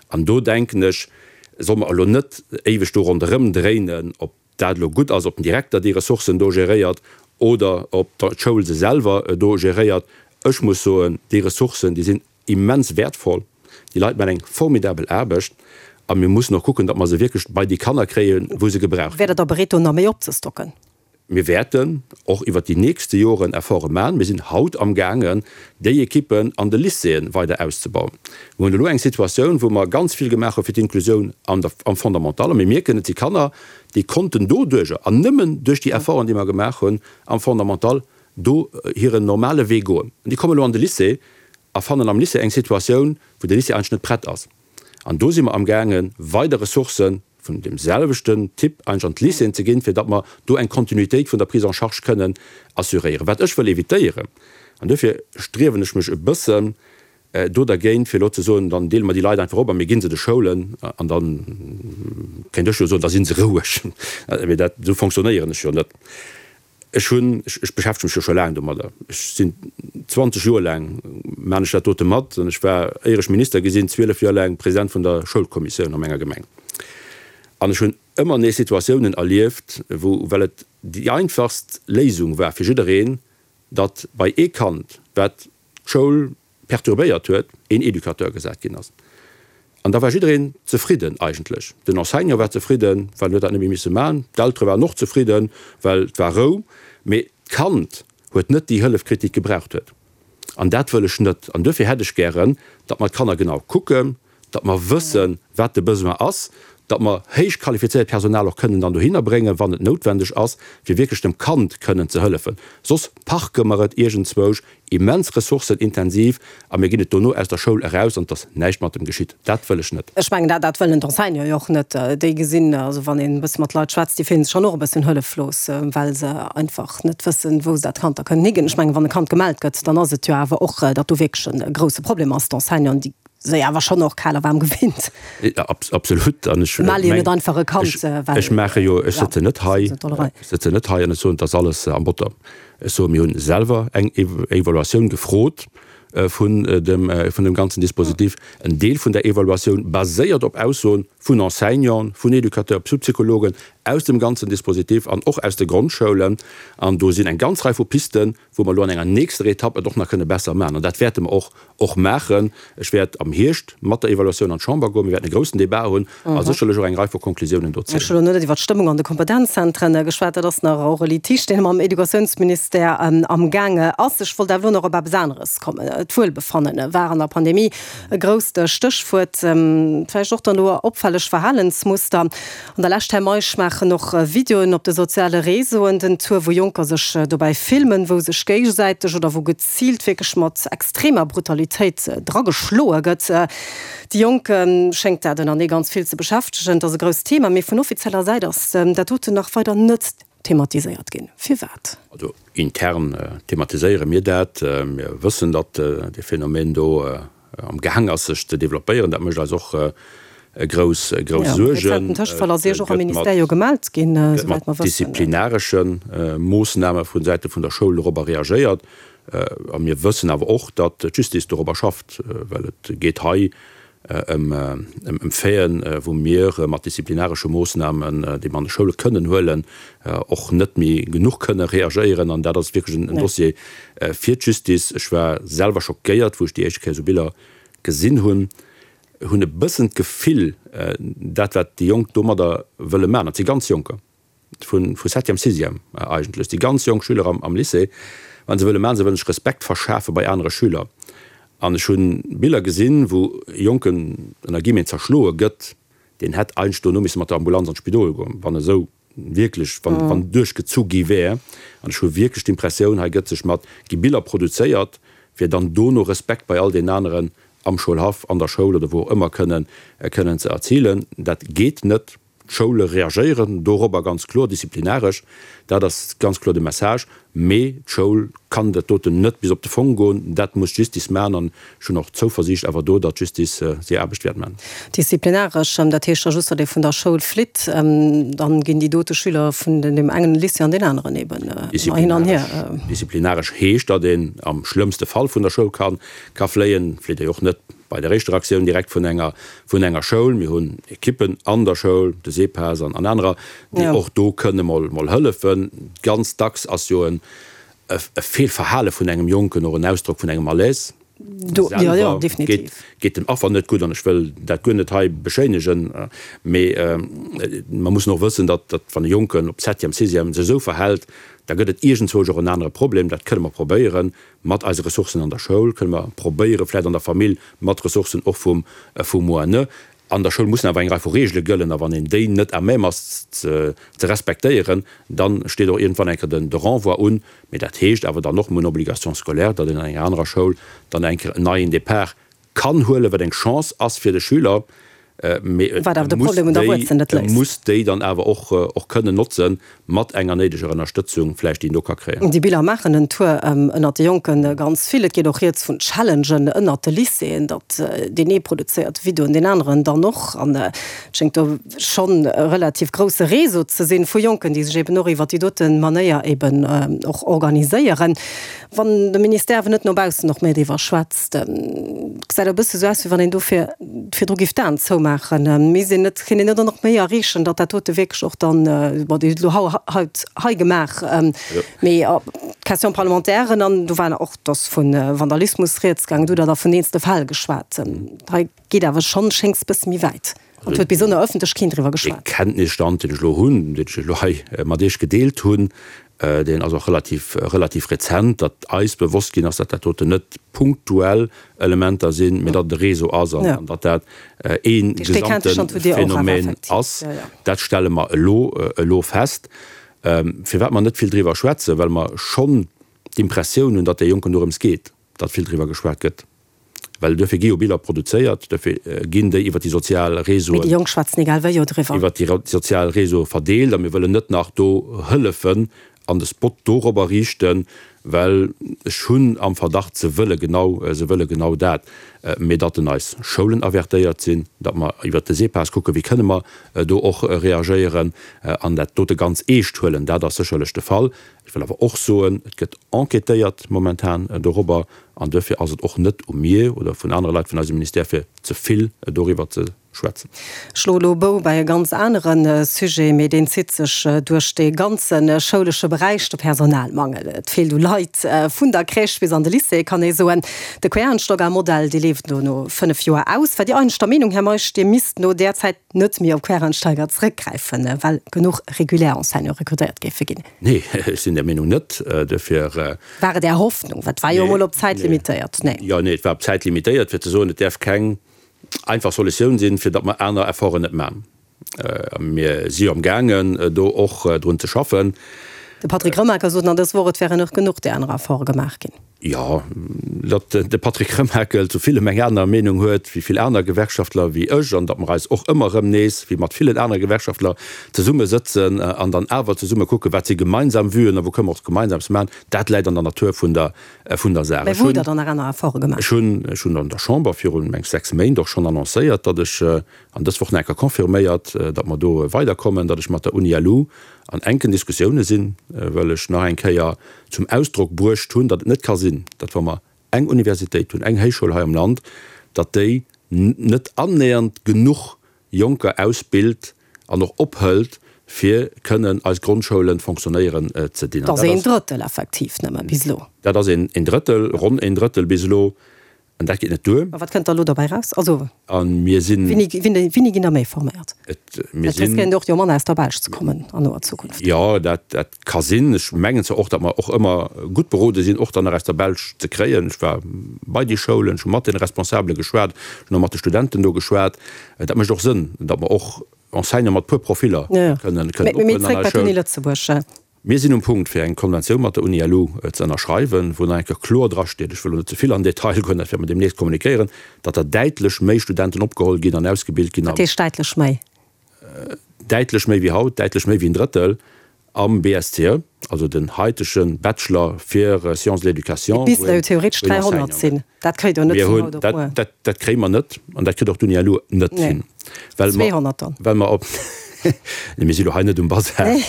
An do denken ech, solle mer elo net éiweg do ronderëm dréinen, ob dat elo gutt ass, ob den Direkter déi Ressourcen do geréiert oder ob d'Schoul se selwer do geréiert. Ech muss soen, déi Ressourcen, déi sinn immens wäertvoll. Déi Leit maachen eng formidabel Aarbecht a mir mussen och kucken, datt mer se wierklech bei déi Kanner kréien, wou se gebraucht Wäert Der da bereet, do nach méi opzestocken? Mir wäerten och iwwert déi nächste Joren Efforte maachen. Mir sinn haut amgaangen, déi Ekippen an de Lycéeën weider auszebauen. Mir hunn elo eng Situatioun, wou mer ganz vill gemaach hu fir d'Inklusioun an der, am Fondamental. A mir mierken, et si Kanner, déi konnten doduerjer, an nëmmen duerch déi Efforten, déi mer gemaach hunn am Fondamental, do hiren normale Wee goen. An déi kommen elo an de Lycée a fannen am Lycée eng Situatioun, wou de Lycée eigentlech net prett ass. An do si mer amgaangen, weider Ressourcë vun deem selwechten Typ eigentlech an d'Lycéeën ze ginn, fir datt mer do eng Kontinuitéit vun der Prise en charge kënnen assuréieren. Wat ech wëll évitéieren, an duerfir striewen ech mech e bëssen do dergéint, fir elo ze soen, dann deele mer déi Leit einfach op a mir gi se de Schoulen, an da kéint ech jo soen, da si se roueg. Mee dat, esou fonctionnéieren ech jo net. Ech hunn, ech beschäftege mech jo scho laang domadder, ech sinn 20 Joer laang maan ech dat dote mat an ech war, éier ech Minister gi sinn, 12 Joer laang President vun der Schoulkommissioun a menger Gemeng. An ech hunn ëmmer nees Situatiounen erlieft, wou, well et déi einfachst Léisung war fir jiddereen, datt bei ee Kand, wat d'Schoul perturbéiert huet, een Educateur gesat ginn ass. An da war jiddereen zefridden eigentlech. Den Enseignant war zefridden, well en huet dat net méi misse man. D'Eltere waren och zefridden, well et war Rou. Mee d'Kand huet net déi Hëllef kritt, déi et gebraucht huet. An dat wëll ech net. An duerfir hätt ech gären, datt mer d'Kanner genau kucken, datt mer wëssen, wat de Besoin ass, datt mer héich qualifizéiert Personal och kënnen dann dohinner bréngen, wann et noutwendeg ass, fir wierklech dem Kand kënnen ze hëllefen. Soss parke mer et iergendzwousch immens ressourcenintensiv a mir ginn et dono aus der Schoul eraus an et ass näischt mat em geschitt. Dat wëll ech net. Ech mengen, dat dat wëllen d'Enseignanten jo och net. Déi gesinn, also wann een e bësse mat Leit schwätzt, déi fillen sech schonn och e bëssen hëlleflos, well se einfach net wëssen, wou se dat Kand da kënnen higinn. Ech mengen, wann e Kand gemellt gëtt, dann ass et jo awer och, datt do wierklech e grousse Problem ass. D'Enseignanten, déi se awer schonn och kal a waarm gewinnt. Absolut. An ech melle jo net einfach e Kand, well. Ech maache jo, ech sëtzen net hei, ech sëtzen net hei an ech soen, et ass alles am Botter. Ech soen, mir hunn selwer eng Evaluatioun gefrot vun dem, vun dem ganzen Dispositif. En Deel vun där Evaluatioun baséiert op Aussoen vun Enseignanten, vun Educateurs, Psychologen aus dem ganzen Dispositif an och aus de Grondschoulen. An do sinn eng ganz Rei vu Pisten, wou mer elo an enger nächster Etapp et och nach kënne besser maachen. An dat wäerte mer och och maachen. Ech wäert am Hierscht mat der Evaluatioun an d'Chamber goen. Mir wäerten e groussen Débat hunn a sécherlech och eng Rei vu Konklusiounen do zéien. Ech hu elo net iwwer d'Stëmmung an de Kompetenzzentren geschwat. Dat ass nach och e Litige, deen mam Educatiounsministère amgaang ass. Ech wollt awer elo nach op eppes aneres kommen. D'Wuelbefanne war an der Pandemie e grousst Stéchwuert. Vläicht och dann elo opfälleg. Opfälleg Verhalensmuster. An der Lescht, Här Meisch, maachen och Videoen op de soziale Réseauen den Tour, wou Jonker sech dobäi filmen, wou sech géigesäiteg oder wou geziilt wierklech mat extremer Brutalitéit drageschloe gëtt. Déi Jonk schéngt dat ënner nee ganz vill ze beschäftegen. Et ass e grousst Thema, mee vun offizieller Säit ass dat doten nach weider net thematiséiert ginn. Firwat? Also intern thematiséiere mir dat. Mir wëssen, datt dee Phänomen do am gaang ass sech ze developpéieren. Dat mécht eis och grouss grouss Suergen. E rezenten Tëschefall ass Iech och am Ministère jo gemellt ginn, esouwäit mer wëssen. Gëtt mat disziplinaresche Moossname vu Säite vun der Schoul dorobber reagéiert. A mir wëssen awer och, datt d'Justice dorobber schafft, well et geet hei ëm Faiten, wou mir mat disziplinaresche Moossnamen, déi mer an de Schoule kënnen huelen, och net méi genuch kënne reagéieren. An dat ass wierklech en Dossier fir d'Justice. Ech war selwer schockéiert, wou ech déi éischte Kéier esou Biller gesinn hunn. Hunn e bëssen d'Gefill, dat wat déi Jonk domadder wëlle maachen, dat si ganz Jonker, vu vu Septième, Sixième eigentlech, déi ganz jonk Schüler am am Lycée, wat se wëlle maachen, se wëllen sech Respekt verschafe bei anere Schüler. An ech hu Biller gesinn, wou e Jonken ënner Guillemeten zerschloe gëtt, deen hätt eigentlech dono misse mat der Ambulanz an d'Spidol goen, wann esou wierklech, wann wann duerchgezu gi wär. An ech hu wierklech d'Impressioun, hei gëtt sech mat, gi Biller produzéiert, fir dann dono Respekt bei all deenen aneren am Schoulhaff, an der Schoul oder wou och ëmmer kënnen kënnen ze erzilen. Dat geet net. D'Schoule reagéieren dorobber ganz kloer disziplinaresch, dat ass ganz kloer de Message. Mee d'Schoul kann dat doten net bis op de Fong goen, dat muss d'Justice maachen. An ech hunn och d'Zouversiicht awer do, datt d'Justice hir Aarbecht wäert maachen. Disziplinaresch, dat heescht da just, datt ee vun der Schoul flitt, dann ginn déi dote Schüler vun deem engen Lycée an deen aneren eben ëmmer hin an hier. Disziplinaresch heescht, datt een am schlëmmste Fall vun der Schoul ka fléien. Flitt ee jo och net Bei der éischter Aktioun direkt vun enger, vun enger Schoul. Mir hunn Ekippen an der Schoul, de SEPAS an anerer, déi och do kënne mol, mol hëllefen. Ganz dacks ass jo en, e Feelverhale vun engem Jonken och en Ausdrock vun engem Malaise. Selwer geet, geet dem Affer net gutt an ech wëll dat guer net hei beschéinegen, mee mer mussen och wëssen, datt, datt wann e Jonken op Septième, Sixième sech esou verhält, da gëtt et iergendzwousch och en anere Problem. Dat kënne mer probéieren Mat eise Ressourcen an der Schoul kënne mer probéieren, vläicht an der Famill mat Ressourcen och vum vum ONE. An der Schoul mussen awer eng Rei vu Reegele gëllen, a wann een déi net à même ass ze respektéieren, da steet och iergendwann eng Kéier den de Renvoi un. Mee dat heescht awer dann och, mir hunn Obligation scolaire, datt een an enger anerer Schoul dann eng Kéier en neien Départ kann huelen, wat eng Chance ass fir de Schüler, mee e muss déi, e muss déi dann awer och, och kënnen notzen, mat enger néideger Ënnerstëtzung vläicht, déi en do ka kréien. Déi Biller maachen en Tour ënnert de Jonke ganz vill. Et geet och rieds vun Challengen ënnert de Lycéeën, datt deen ee produzéiert Videoen, deen aneren dann och. An et schéngt do schonn e relativ grousse Réseau ze sinn vu Jonken, déi sech eben och iwwert déi dote Manéier eben och organiséieren. Wann de Ministère awer net no baussen och méi driwwer schwätzt, gesäit e bësse sou aus, wéi wann een dofir virdru géif d'Aen zoumaachen. Misst een net, kéint een net och nach méi erreechen, datt dat dote wierklech och dann, bon, Dir hutt elo haut hei gemaach, mee d'Question-parlementairen an do war och, et ass vu Vandalismus rieds gaangen, do hutt Der da vun eenzele Fäll geschwat. Hei geet awer schonn, schéngt e bësse méi wäit. An et huet bis an der Ëffentlech keen driwwer geschwat. Dee Kenntnisstand, deen ech elo hunn, deen ech elo hei mat Iech gedeelt hunn, deen ass och relativ, relativ rezent, datt eis bewosst ginn ass, datt dat doten net punktuell Elementer sinn, mee datt et e Réseau ass an datt dat ee gesamte Phänomen ass. Dat stelle mer elo, elo fest. Firwat mer net vill driwwer schwätzen, well mer schonn d'Impressioun hunn, datt de Jonken dorëms geet, datt vill driwwer geschwat gëtt. Well duerfir gi jo Biller produzéiert, duerfir ginn déi iwwer déi sozial Réseauen. Mee déi Jonk schwätzen egal wéi jo driwwer. Iwwer déi sozial Réseaue verdeelt a mir wëllen net nach do hëllefen an de Spot dorobber riichten, well ech hunn am Verdacht, se wëlle genau, se wëlle genau dat. Mee datt en eis Schoulen avertéiert sinn, datt mer iwwert de SEPAS kucken, wéi kënne mer do och reagéieren an dat dote ganz eescht huelen, dat ass sécherlech de Fall. Ech wëll awer och soen, et gëtt enquêtéiert momentan dorobber an duerfir ass et och net u mir oder vun anere Leit vun eisem Ministère, fir ze vill doriwwer ze schwätzen. Ech schloe elo e Bou bei e ganz anere Sujet, mee deen zitt sech duerch dee ganze schoulesche Beräich, de Personalmangel. Et feelt u Leit, vun der Crèche bis an de Lycée, kann ee soen. De Quereinsteigermodell, dee leeft elo no 5 Joer aus. War Dir eigentlech der Meenung, Här Meisch, Dir misst no där Zäit net méi op Quereinsteiger zrëckgräifen, well genuch regulär Enseignante rekrutéiert géife ginn? Nee, ech sinn där Meenung net. Duerfir. War et Är Hoffnung? Well et war jo emol op Zäit limitéiert. Nee. Jo, nee, et war op Zäit limitéiert, fir ze soen, et däerf keng. einfach Solutioun sinn, fir datt mer aner Efforten net maachen. Mir si jo am gaangen, do och drun ze schaffen. De Patrick Remakel sot nach dës Woch, et wären och genuch där aner Efforte gemaach ginn. Jo, datt de Patrick Remakel zu villem eng aner Meenung huet wéi vill aner Gewerkschaftler wéi ech an datt mer eis och ëmmer erëm nees, wéi mat villen anere Gewerkschaftler, zesumme sëtzen an dann awer zesumme kucken, wat si gemeinsam Vuen a wou kënne mer och gemeinsames maachen, dat läit an der Natur vun der, vun der Saach. Mä wou hutt Der dann nach aner Efforte gemaach? Ech hunn, ech hunn an der Chamber virun, meng ech, 6 Méint och schonn annoncéiert, datt ech, an dës Woch nach eng Kéier confirméiert, datt mer do weiderkommen, datt ech mat der Uni-LU an enken Diskussioune sinn, well ech nach eng Kéier zum Ausdrock bruecht hunn, datt et net ka sinn, datt wa mer eng Universitéit hunn, eng Héichschoul hei am Land, datt déi net annähernd genuch Jonker ausbilt an och ophëlt, fir kënnen eis Grondschoule fonctionnéieren ze dinn. Dat ass een Drëttel effektiv nëmme bis elo. Dat ass een Drëttel, ronn een Drëttel bis elo. An dat geet net duer. Ma wat kënnt da elo dobäi raus? Also, A mir sinn. Wéini, wéini, wéini ginn der méi forméiert? Et, mir sinn. Et riskéiert och jo manner aus der Belsch ze kommen an noer Zukunft. Jo, dat, dat ka sinn. Ech mengen zwar och, datt mer och ëmmer gutt berode sinn, och dann nach aus der Belsch ze kréien. Ech war bei déi Schoulen, ech hu mat deene Responsabele geschwat, ech hunn och mat de Studenten do geschwat. Dat mécht och Sënn, datt mer och Enseignante mat puer Profiller kënnen, kënnen ophuelen an eis Schoul. Mee, mee zréck bei d'Uni Lëtzebuerg. Mir sinn um Punkt, fir eng Konventioun mat der Uni-LU ze ënnerschreiwen, wou nach eng Kéier kloer drasteet, ech wëll elo net ze vill an den Detail goen, dat wäerte mer deemnächst kommunikéieren, datt der däitlech méi Studenten opgeholl ginn an ausgebilt ginn. Wat heescht däitlech méi? Däitlech méi wéi haut, däitlech méi wéi en Drëttel am BSCE, also den haitege Bachelor fir Sciences de l'éducation. Et missten der jo theoretesch 300 sinn. Dat kréit Der net vun haut op muer. Dat kréie mer net an dat kritt och d'Uni-LU net hin. Well mer, 200 dann. Well mer op, nee, mir si lo hei net um Basar. Nee.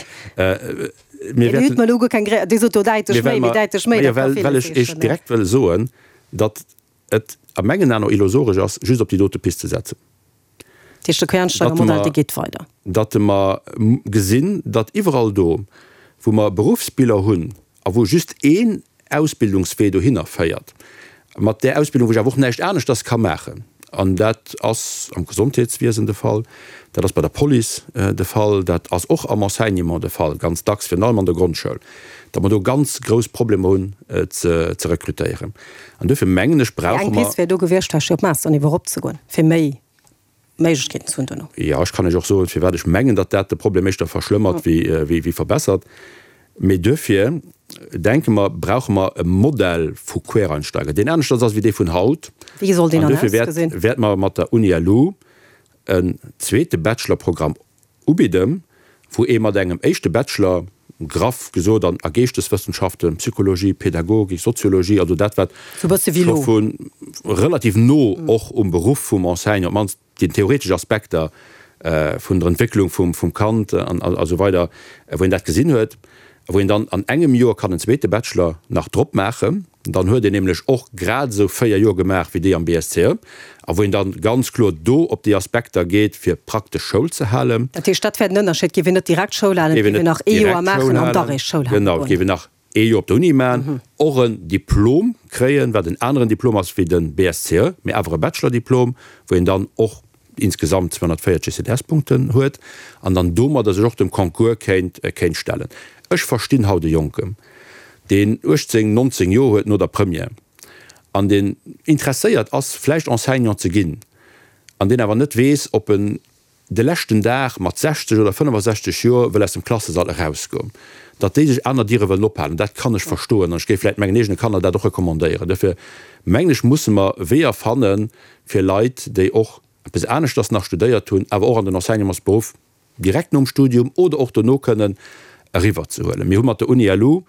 Mir wäerten. Dir hutt mer elo guer keng Gré, Dir sot do däitlech méi, mee däitlech méi, dat ka villes heeschen. Well ech Iech direkt wëll soen, datt et a mengen Aen och illusoresch ass, just op déi dote Pist ze setzen. Dat heescht, de Quereinsteigermodell, dee geet weider. Datt mer gesinn, datt iwwerall do, wou mer Beruffsbiller hunn a wou just een Ausbildungswee dohinner féiert, mat där Ausbildung, wou ech awer och näischt aneschters ka maachen, an dat ass am Gesondheetswiesen de Fall, dat ass bei der Police de Fall, dat ass och am Enseignement de Fall, ganz dacks, virun allem an der Grondschoul, datt mer do ganz grouss Problemer hunn ze rekrutéieren. An duerfir mengen ech, brauche mer. Eng Pist wär do gewiescht, vläicht fir op Masterniveau eropzegoen, fir méi Méiglechkeeten ze hunn duerno. Jo, ech kann Iech och soen, firwat ech mengen, datt dat de Problem éischter verschlëmmert wéi verbessert. Mee duerfir denke mer, brauche mer e Modell vu Quereinsteiger, deen aneschters ass wéi dee vun haut. Wéi soll deen dann ausgesinn? An duerfir wäerte mer mat der Uni-LU en zweete Bachelorprogramm Ubidden, wou ee mat engem éischte Bachelor, graff gesot an a Geeschteswëssenschaften, Psychologie, Pädagogik, Soziologie, also dat wat scho vu relativ no och um Beruff vum Enseignant, op d'mannst déi theoretesch Aspekter vun der Entwécklung vum Kand an esou weider, wou een dat gesinn huet, wou een dann an engem Joer kann en zweete Bachelor nach drop maachen. Dann huet een nämlech och grad esou 4 Joer gemaach wéi déi am BSCE a wou een dann ganz kloer do op déi Aspekter geet fir praktesch Schoul ze halen. Dat heescht, dat wäert en Ënnerscheed, géif een net direkt Schoul halen, et géif een nach ee Joer maachen an da réischt Schoul halen goen. Genau, et géif een nach ee Joer op der Uni maachen, och en Diplom kréien, wat en aneren Diplom ass wéi de BSCE, mee awer e Bachelor-Diplom, wou een dann och insgesamt 240 ECTS-Punkten huet an dann domadder sech och dem Concours kéint kéint stellen. Ech verstinn haut e Jonken, deen 18, 19 Joer huet no der Première an deen interesséiert ass vläicht Enseignant ze ginn an deen awer net weess, ob en de leschten Dag mat 60 oder 65 Joer wëll aus dem Klassesall erausgoen, datt déi sech aner Diere wëllen ophalen. Dat kann ech verstoen an ech géif vläicht mengen eegene Kanner dat och recommandéieren. Duerfir mengen ech, musse mer Weeër fannen, fir Leit, déi och eppes aneschters nach studéiert hunn, awer och an den Enseignementsberuff direkt nom Studium oder och dono kënnen eriwwerzehuelen. Mir hu mat der Uni-LU,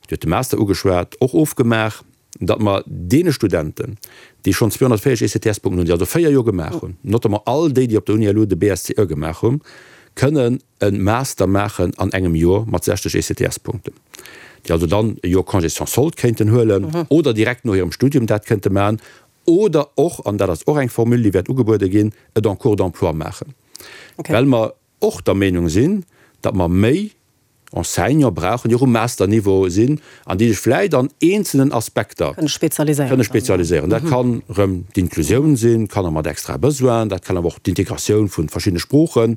Dir hutt de Master ugeschwat, och ofgemaach, datt mer deene Studenten, déi schonn 240 ECTS-Punkten hunn, déi also 4 Joer gemaach hunn, notamment all déi, déi op der Uni-LU de BSCE gemaach hunn, kënnen e Master maachen an engem Joer mat 60 ECTS-Punkten, déi also dann e Joer Congé sans solde kéinten huelen oder direkt no hirem Studium dat kënnte maachen Oder och, an dat ass och eng Formule, déi wäert ugebuede ginn, et en cours d'emploi maachen, well mer och der Meenung sinn, datt mer méi Enseignante brauchen, déi och um Masterniveau sinn an déi sech vläicht an eenzelnen Aspekter kënne spezialiséieren. Dat kann erëm d'Inklusioun sinn, Kanner mat extrae Besoinen, dat kann awer och d'Integratioun vu verschiddene Sprooche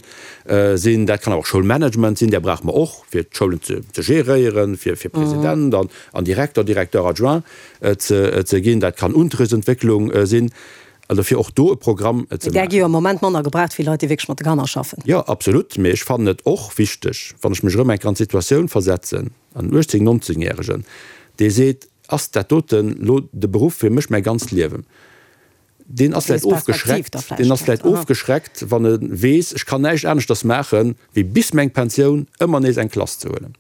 sinn, dat kann awer och Schoulmanagement sinn, där brauche mer och, fir d'Schoulen ze geréieren, fir President an Direkter, Directeur adjoint ze ginn, dat kann Unterrichtsentwécklung sinn. Also fir och do e Programm ze Där gi jo am Moment manner gebraucht wéi Leit, déi wierklech mat de Kanner schaffen. Jo, absolut. Mee ech fannen et och wichteg, wann ech mech erëm eng Kéier an d'Situatioun versetzen, an en 18-, 19 Järegen, dee seet, Ass dat doten elo de Beruff fir mech mäi ganzt Liewen? Deen ass vläicht ofgeschreckt, deen ass vläicht ofgeschreckt, wann e weess, ech kann näischt aneschters maachen, wéi bis meng Pensioun ëmmer nees eng Klass ze huelen.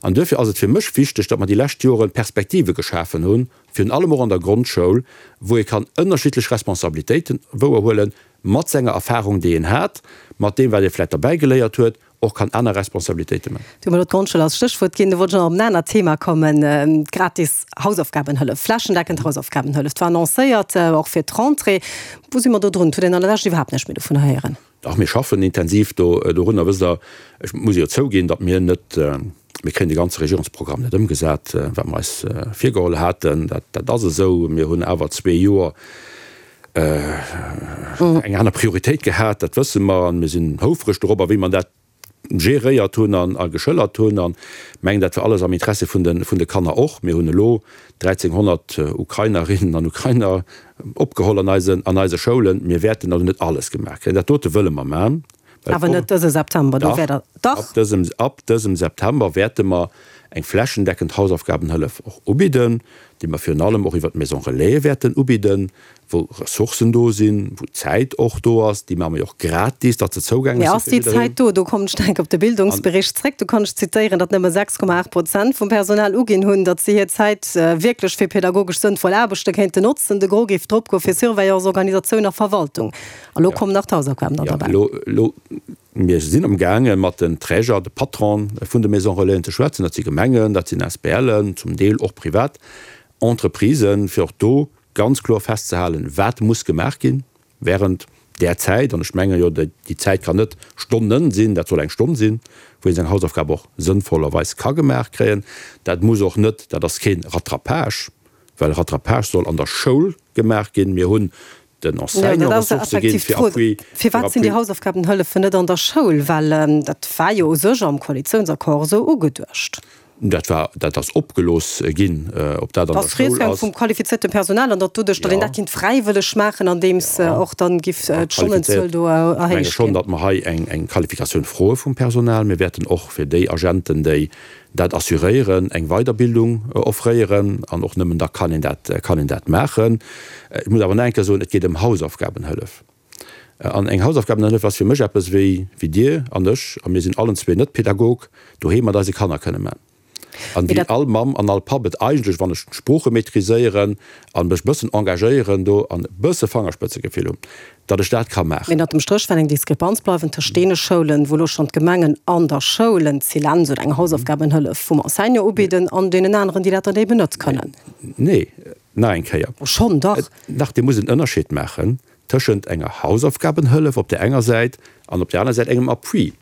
An duerfir ass et fir mech wichteg, datt mer déi lescht Jore Perspektive geschafen hunn, virun allem och an der Grondschoul, wou ee kann ënnerschiddlech Responsabilitéiten wouerhuelen, mat senger Erfahrung, déi een hat, mat deem, wat ee vläicht derbäigeléiert huet, och kann aner Responsabilitéite man. Du hues elo d'Grondschoul als Stéchwuert ginn. Do wollt ech nach op en anert Thema kommen, d'gratis Hausaufgabenhëllef, flächendeckend Hausaufgabenhëllef. Dat war annoncéiert, och fir d'Rentrée. Wou si mer do drun? Et huet een an der Lescht iwwerhaapt näischt méi dovun héieren. Dach, mir schaffen intensiv do dorunner. Wësst Der, ech muss jo zouginn, datt mir net, mir kréien de ganze Regierungsprogramm net ëmgesat, wat mer eis virgeholl haten. Dat, dat ass esou. Mir hunn awer zwee Joer eng aner Prioritéit gehat, dat wësse mer, an mir sinn houfreg dorobber, wéi mer dat geréiert hunn a geschëllert hunn an mengen, dat war alles am Interesse vun de, vun de Kanner och. Mir hunn elo 1.300 Ukrainerinnen an Ukrainer opgeholl an eisen, an eise Schoulen. Mir wäerten also net alles gemaach kréien. Dat dote wëlle mer maachen. Awer net dëse September, do wäert Der, dach? Ab dësem, ab dësem September wäerte mer eng flächendeckend Hausaufgabenhëllef och ubidden, déi mer virun allem och iwwert d'Maison Relais wäerten ubidden, wou Ressourcen do sinn, wou Zäit och do ass. Déi maache mer jo och gratis, datt se zougänglech Mee ass si fir déi jiddereen. Zäit do? Do kommen ech enk op de Bildungsbericht zréck. Do kann ech zitéieren, datt nëmme 6,8 Prozent vum Personal uginn hunn, datt si hir Zäit wierklech fir pedagogesch sënnvoll Aarbechte kéinten notzen. De Gros géif drop goe fir Surveillance, Organisatioun a Verwaltung. A lo kommen nach d'Hausaufgaben dann derbäi. Jo, elo, mir sinn amgaange mat den Träger, de Patronen vun de Maisons Relaisen ze schwätzen. Dat si Gemengen, dat sinn ASBLen, zum Deel och privat Entreprisen, fir och do ganz kloer festzehalen, wat muss gemaach ginn während där Zäit. An ech menge jo, déi Zäit kann net Stonnen sinn, dat soll eng Stonn sinn, wou ee seng Hausaufgab och sënnvollerweis ka gemaach kréien. Dat muss och net, dat ass kee Rattrapage, well Rattrapage soll an der Schoul gemaach ginn. Mir hunn den Enseignant Ressourcë ginn, fir Appui. Firwat sinn déi Hausaufgabenhëllefen net an der Schoul? Well dat war jo u sech am Koalitiounsaccord esou ugeduecht. Dat war, dat ass opgelooss ginn, ob dat an der Schoul ass. Vum qualifiziertem Personal an datt doduerch, datt een dat kinnt fräiwëlleg maachen, andeems och dann giff d'Stonnenzuel do erhéicht ginn. Ech menge schonn, datt mer hei eng Qualifikatioun froe vum Personal. Mir wäerten och fir déi Agenten, déi dat assuréieren, eng Weiderbildung offréieren, an och nëmmen da kann een dat, kann een dat maachen. Ech muss awer nach eng Kéier soen, et geet ëm Hausaufgabenhëllef. An eng Hausaufgabenhëllef ass fir mech eppes, wéi, wéi Dir an ech, a mir sinn allen zwee net Pädagog, doheem mat eise Kanner kënne man. An wéi all Mamm an all Papp et eigentlech, wann ech d'Sprooche maîtriséieren a mech e bëssen engagéieren do an e bësse Fangerspëtzegefill hunn, datt ech dat ka maachen. Mee ënnert dem Stréch wäert eng Diskrepanz bleiwen tëscht deene Schoulen, wou elo schonn d'Gemengen an der Schoul en Zilens oder eng Hausaufgabenhëllef vum Enseignant ubidden, an deenen aneren, déi dat dann eben net kënnen. Nee, nach eng Kéier. Schonn, dach. Dach, Dir musst en Ënnerscheed maachen tëschent enger Hausaufgabenhëllef op där enger Säit an op där aner Säit engem Appui.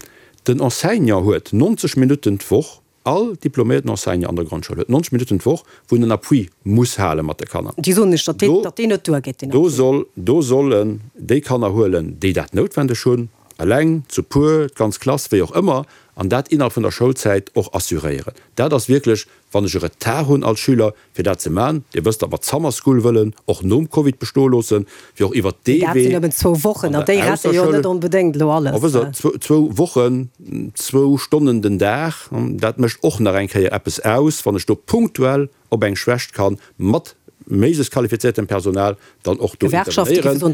Den Enseignant huet 90 Minutten d'Woch All diploméierten Enseignant an der Grondschoul huet 90 Minutten d'Woch, wou en en Appui muss hale mat de Kanner. Déi soen lech, datt deen, datt deen net duergeet, deen Appui. Do soll, do sollen déi Kanner huelen, déi dat noutwendeg hunn, eleng, zu puer, d'ganz Klass, wéi och ëmmer, an dat innerhalb vun der Schoulzäit och assuréieren. Dat ass wierklech, wann ech e Retard hunn als Schüler, fir dat ze man. Dir wësst, datt mer d'Summer School wëllen och nom Covid bestoe loossen, fir och iwwert dee Wee. Dat sinn nëmmen zwou Wochen, an déi rette jo net onbedéngt elo alles. Wësst Der, zwou Wochen, zwou Stonnen den Dag, dat mécht och nach eng Kéier eppes aus, wann ech do punktuell op eng Schwächt kann mat méiglechst qualifiziertem Personal dann och do intervenéieren.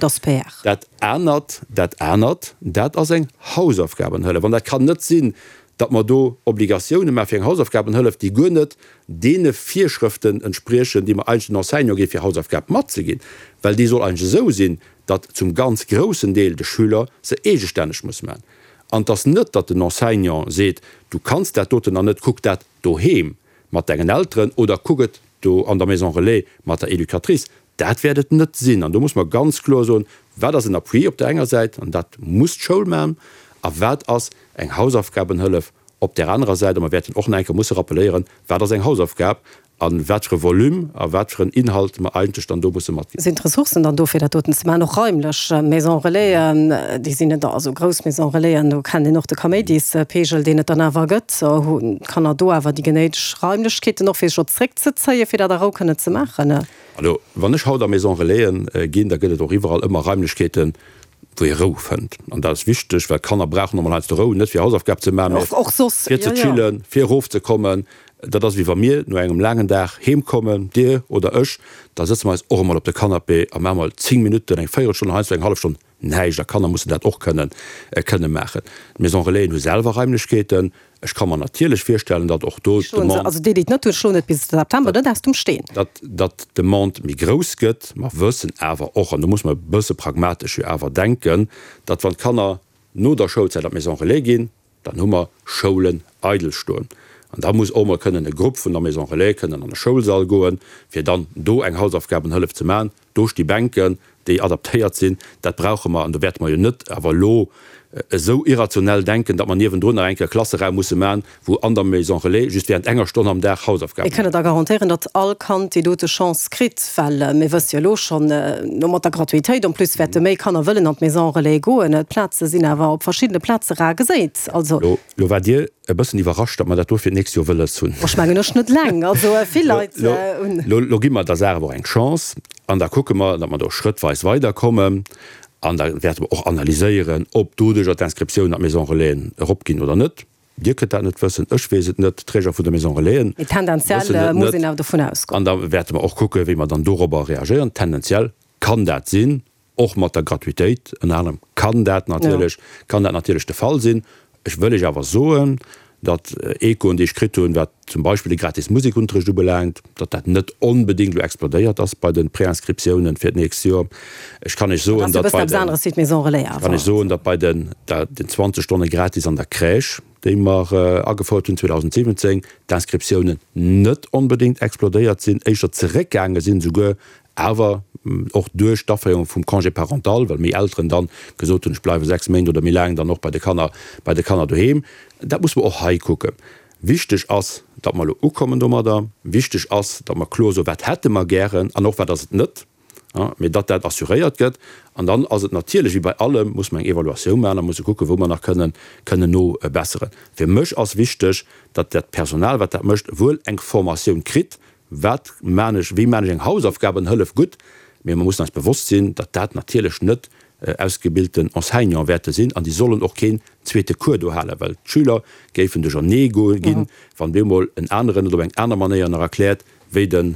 Dat anert, dat anert, dat ass eng Hausaufgabenhëllef. An dat kann net sinn, datt mer do Obligatioune maache fir eng Hausaufgabenhëllef, déi guer net deene Virschrëften entspriechen, déi mer eigentlech den Enseignant gi fir Hausaufgab matzeginn, well déi soll eigentlech esou sinn, datt zum ganz groussen Deel de Schüler se eegestänneg muss maachen. An et ass net, datt den Enseignant seet, du kanns dat doten nach net, kuck dat doheem mat dengen Elteren oder kuck et do an der Maison relais mat der Educatrice. Dat wäert et net sinn. An do muss mer ganz kloer soen, Wat ass en Appui op där enger Säit, an dat muss d'Schoul maachen, a wat ass eng Hausaufgabenhëllef op där anerer Säit? A mer wäerten och nach eng Kéier musse rappeléieren, wat ass eng Hausaufgab a wat fir e Volume a wat fir en Inhalt mer eigentlech dann do musse matginn. Sinn d'Ressourcen dann do, fir dat doten ze maachen, och raimlech? Maisons Relaisen, déi sinn net, also grouss Maisons Relaisen, do kennt een och de Kaméidispegel, deen et dann awer gëtt. Hunn d'Kanner do awer déi genéideg Raimlechkeeten och, fir sech och zréckzezéien, fir dat a Rou kënnen ze maachen? Elo, wann ech haut a Maison Relaisen ginn, da gëtt et och iwwerall ëmmer Raimlechkeeten, wou ee Rou fënnt. An dat ass wichteg, well d'Kanner brauchen och mol heiansdo Rou, net fir Hausaufgab ze maachen, mä fir ze chillen, fir erofzekommen. Dat ass wéi wa mir no engem laangen Dag heem kommen, Dir oder ech, da sëtze mer eis och emol op de Canapé a maache mol 10 Minutten, eng Véierelstonn, heiansdo eng hallef Stonn näischt. A Kanner mussen dat och kënnen, kënne maachen. D'Maison Relaisen hu selwer Raimlechkeeten. Ech ka mer natierlech virstellen, datt och do d'Demande. Also déi, déi et net hunn, schloen et bis September net aus dem Steen. Datt, datt d'Demande méi grouss gëtt. Mer wëssen awer och, an do muss mer e bësse pragmatesch jo awer denken, datt wann d'Kanner no der Schoulzäit an d'Maison Relais ginn, dann hu mer Schoulen eidel stoen. An da muss och mol kënnen e Grupp vun der Maison Relais kënnen an e Schoulsall goen, fir dann do eng Hausaufgabenhëllef ze maachen. Do sti Bänken, déi adaptéiert sinn. Dat brauche mer. An do wäerte mer jo net awer elo esou irrationell denken, datt mer niewendrun nach eng Kéier e Klasseraum musse maachen, wou an der Maison Relais just während enger Stonn am Dag Hausaufgaben Mir kënnen da garantéieren, datt all Kand déi dote Chance kritt, well mir wësse jo elo schonn, elo mat der Gratuitéit en plus wäerte méi Kanner wëllen an d'Maison Relais goen. D'Plaze sinn awer op verschiddene Plaze rar geséit. Also. Lo waart Dir e bëssen iwwerrascht, datt mer dat do fir d'nächst Joer wëlles hunn. Ech mengen ech net eleng, also vill Leit hunn. Lo gi mer der Saach awer och eng Chance an da kucke mer, datt mer do schrëttweis weiderkommen an da wäerte mer och analyséieren, ob doduerjer d'Inscriptiounen an d'Maison Relaisen eropginn oder net. Dir kënnt dat net wëssen, ech weess et net, d'Träger vun de Maison Relaisen Mee tendenziell wëssen et muss net. een awer dovun ausgoen. An da wäerte mer och kucken, wéi mer dann dorobber reagéieren. Tendenziell kann dat sinn. Och mat der Gratuitéit ënner anerem kann dat natierlech, kann dat natierlech de Fall sinn. Ech wëll Iech awer soen, datt Echoen, déi ech kritt hunn, wat zum Beispill de gratis Musekunterricht ubelaangt, datt dat net onbedéngt elo explodéiert ass bei de Préinscriptiounen fir d'nächst Joer. Ech kann Iech soen, datt bei den, ech kann Iech soen, datt bei den, den 20 Stonne gratis an der Crèche, déi mer agefouert hunn 2017, d'Inscriptiounen net onbedéngt explodéiert sinn, éischter zeréckgaange sinn esouguer, awer och duerch d'Aféierung vum Congé parental, well méi Elteren dann gesot hunn, ech bleiwe 6 Méint oder méi laang dann och bei de Kanner, bei de Kanner doheem. Dat muss mer och hei kucken. Wichteg ass, datt mer elo ukommen domadder. Wichteg ass, datt mer kloer soen, wat hätte mer gären an och wat ass et net, mee datt dat assuréiert gëtt. An dann ass et natierlech, wéi bei allem, muss mer eng Evaluatioun maachen a musse kucken, wou mer nach kënnen, kënnen nobesseren. Fir mech ass wichteg, datt dat Personal, wat dat mécht, wuel eng Formatioun kritt, Wat maan ech, wéi maan ech eng Hausaufgabenhëllef gutt? Mee mer mussen eis bewosst sinn, datt dat natierlech net ausgebilten Enseignante wäerte sinn an déi sollen och keen zweete Cours do halen, well d'Schüler géifen duerchernee ginn, wann bemol en aneren et op eng aner Manéier nach erkläert wéi de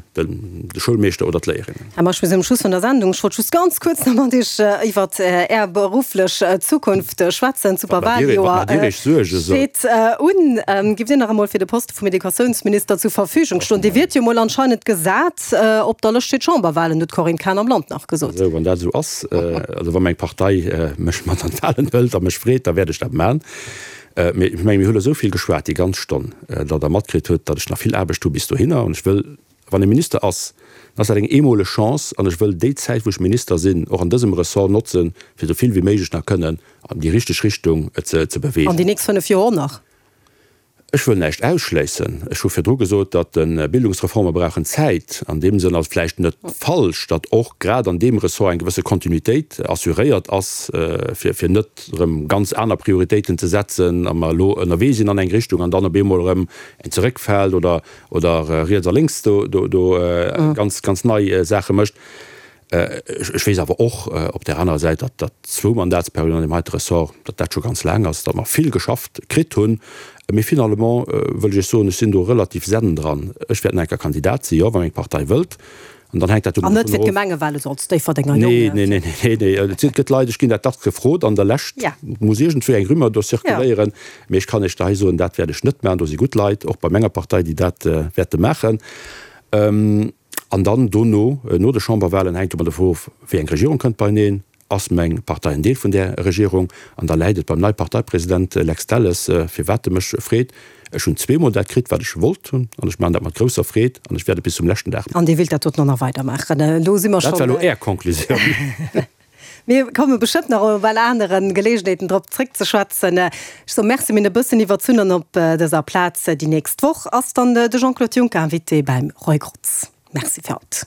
Schoulmeeschter oder d'Léierinnen. Här Meisch, mir sinn um Schluss vun der Sendung. Ech wollt just ganz kuerz nach mat Iech iwwert Är berufflech Zukunft schwätzen. D'Superwaljoer steet un. Giff Dir nach emol fir de Poste vum Educatiounsminister zur Verfügung stoen. Dir wiert jo mol anscheinend gesat op der Lëscht fir d'Chamberwahlen, huet d'Corinne Cahen am Land nach gesot. Also wann dat esou ass, also wa meng Partei mech mat an d'Wahlen hëlt a mech freet, da wäert ech dat maachen. Mee ech menge mir hu elo esou vill geschwat déi ganz Stonn, datt Der matkritt hutt, datt ech nach vill Aarbecht hu bis dohinner. An ech wëll, wann ee Minister ass, dann ass dat eng eemoleg Chance an ech wëll déi Zäit wou ech Minister sinn, och an dësem Ressort notzen, fir esou vill wéi méiglech nach kënnen an déi richteg Richtung ze beweegen. An déi nächst 5 Joer och nach? Ech wëll näischt ausschléissen. Ech hu virdru gesot, datt de Bildungsreforme brauchen Zäit. An deem Sënn ass et vläicht net falsch, datt och grad an deem Ressort eng gewësse Kontinuitéit assuréiert ass, fir fir net erëm ganz aner Prioritéiten ze setzen a mer elo ënnerwee sinn an eng Richtung an dann op eemol erëm eng zeréckfält oder oder riets a lénks do do ganz ganz nei Saache mécht. Ech weess awer och op där anerer Säit, datt dat zwou Mandatsperioden an deem heite Ressort, datt dat scho ganz laang ass, datt mer vill geschafft kritt hunn. Mee finalement wëll ech Iech soen, ech sinn do relativ zen dran. Ech wäert nach eng Kéier Kandidat sinn, jo, wa meng Partei wëllt. An dann hänkt dat An net dovun fir of. d'Gemengewale, sou als Déifferdenger Jong. Nee, nee, nee, nee, nee. Et gëtt Leit, ech ginn dat dacks gefrot an der Lescht muss iergendwéi eng Rumeur do zirkuléieren. Mee ech kann Iech da hei soen, dat wäert ech net maachen. Do si gutt Leit, och bei menger Partei, déi dat wäerte maachen. An dann dono, no de Chamberwahlen, hänkt ëmmer dovun of, wéi eng Regierung kënnt beieneen. Ass meng Partei en Deel vun där Regierung? An da läit et beim nei Parteipresident Lex Delles, firwat e mech freet. Ech hunn zweemol dat kritt, wat ech wollt hunn, an ech maachen dat mat grousser Freed an ech wäert et bis zum leschten Dag maachen. An Dir wéilt dat doten och nach weidermaachen? Elo si mer schonn. Dat war elo Är Conclusioun. Mir komme bestëmmt nach op well anere Geleegenheeten drop zréckzeschwätzen. Ech soe Merci, mir hunn e bëssen iwwerzunn an op dëser Plaz déi nächst Woch ass dann de Jean-Claude Juncker Invité beim Roy Grotz. Merci fir haut.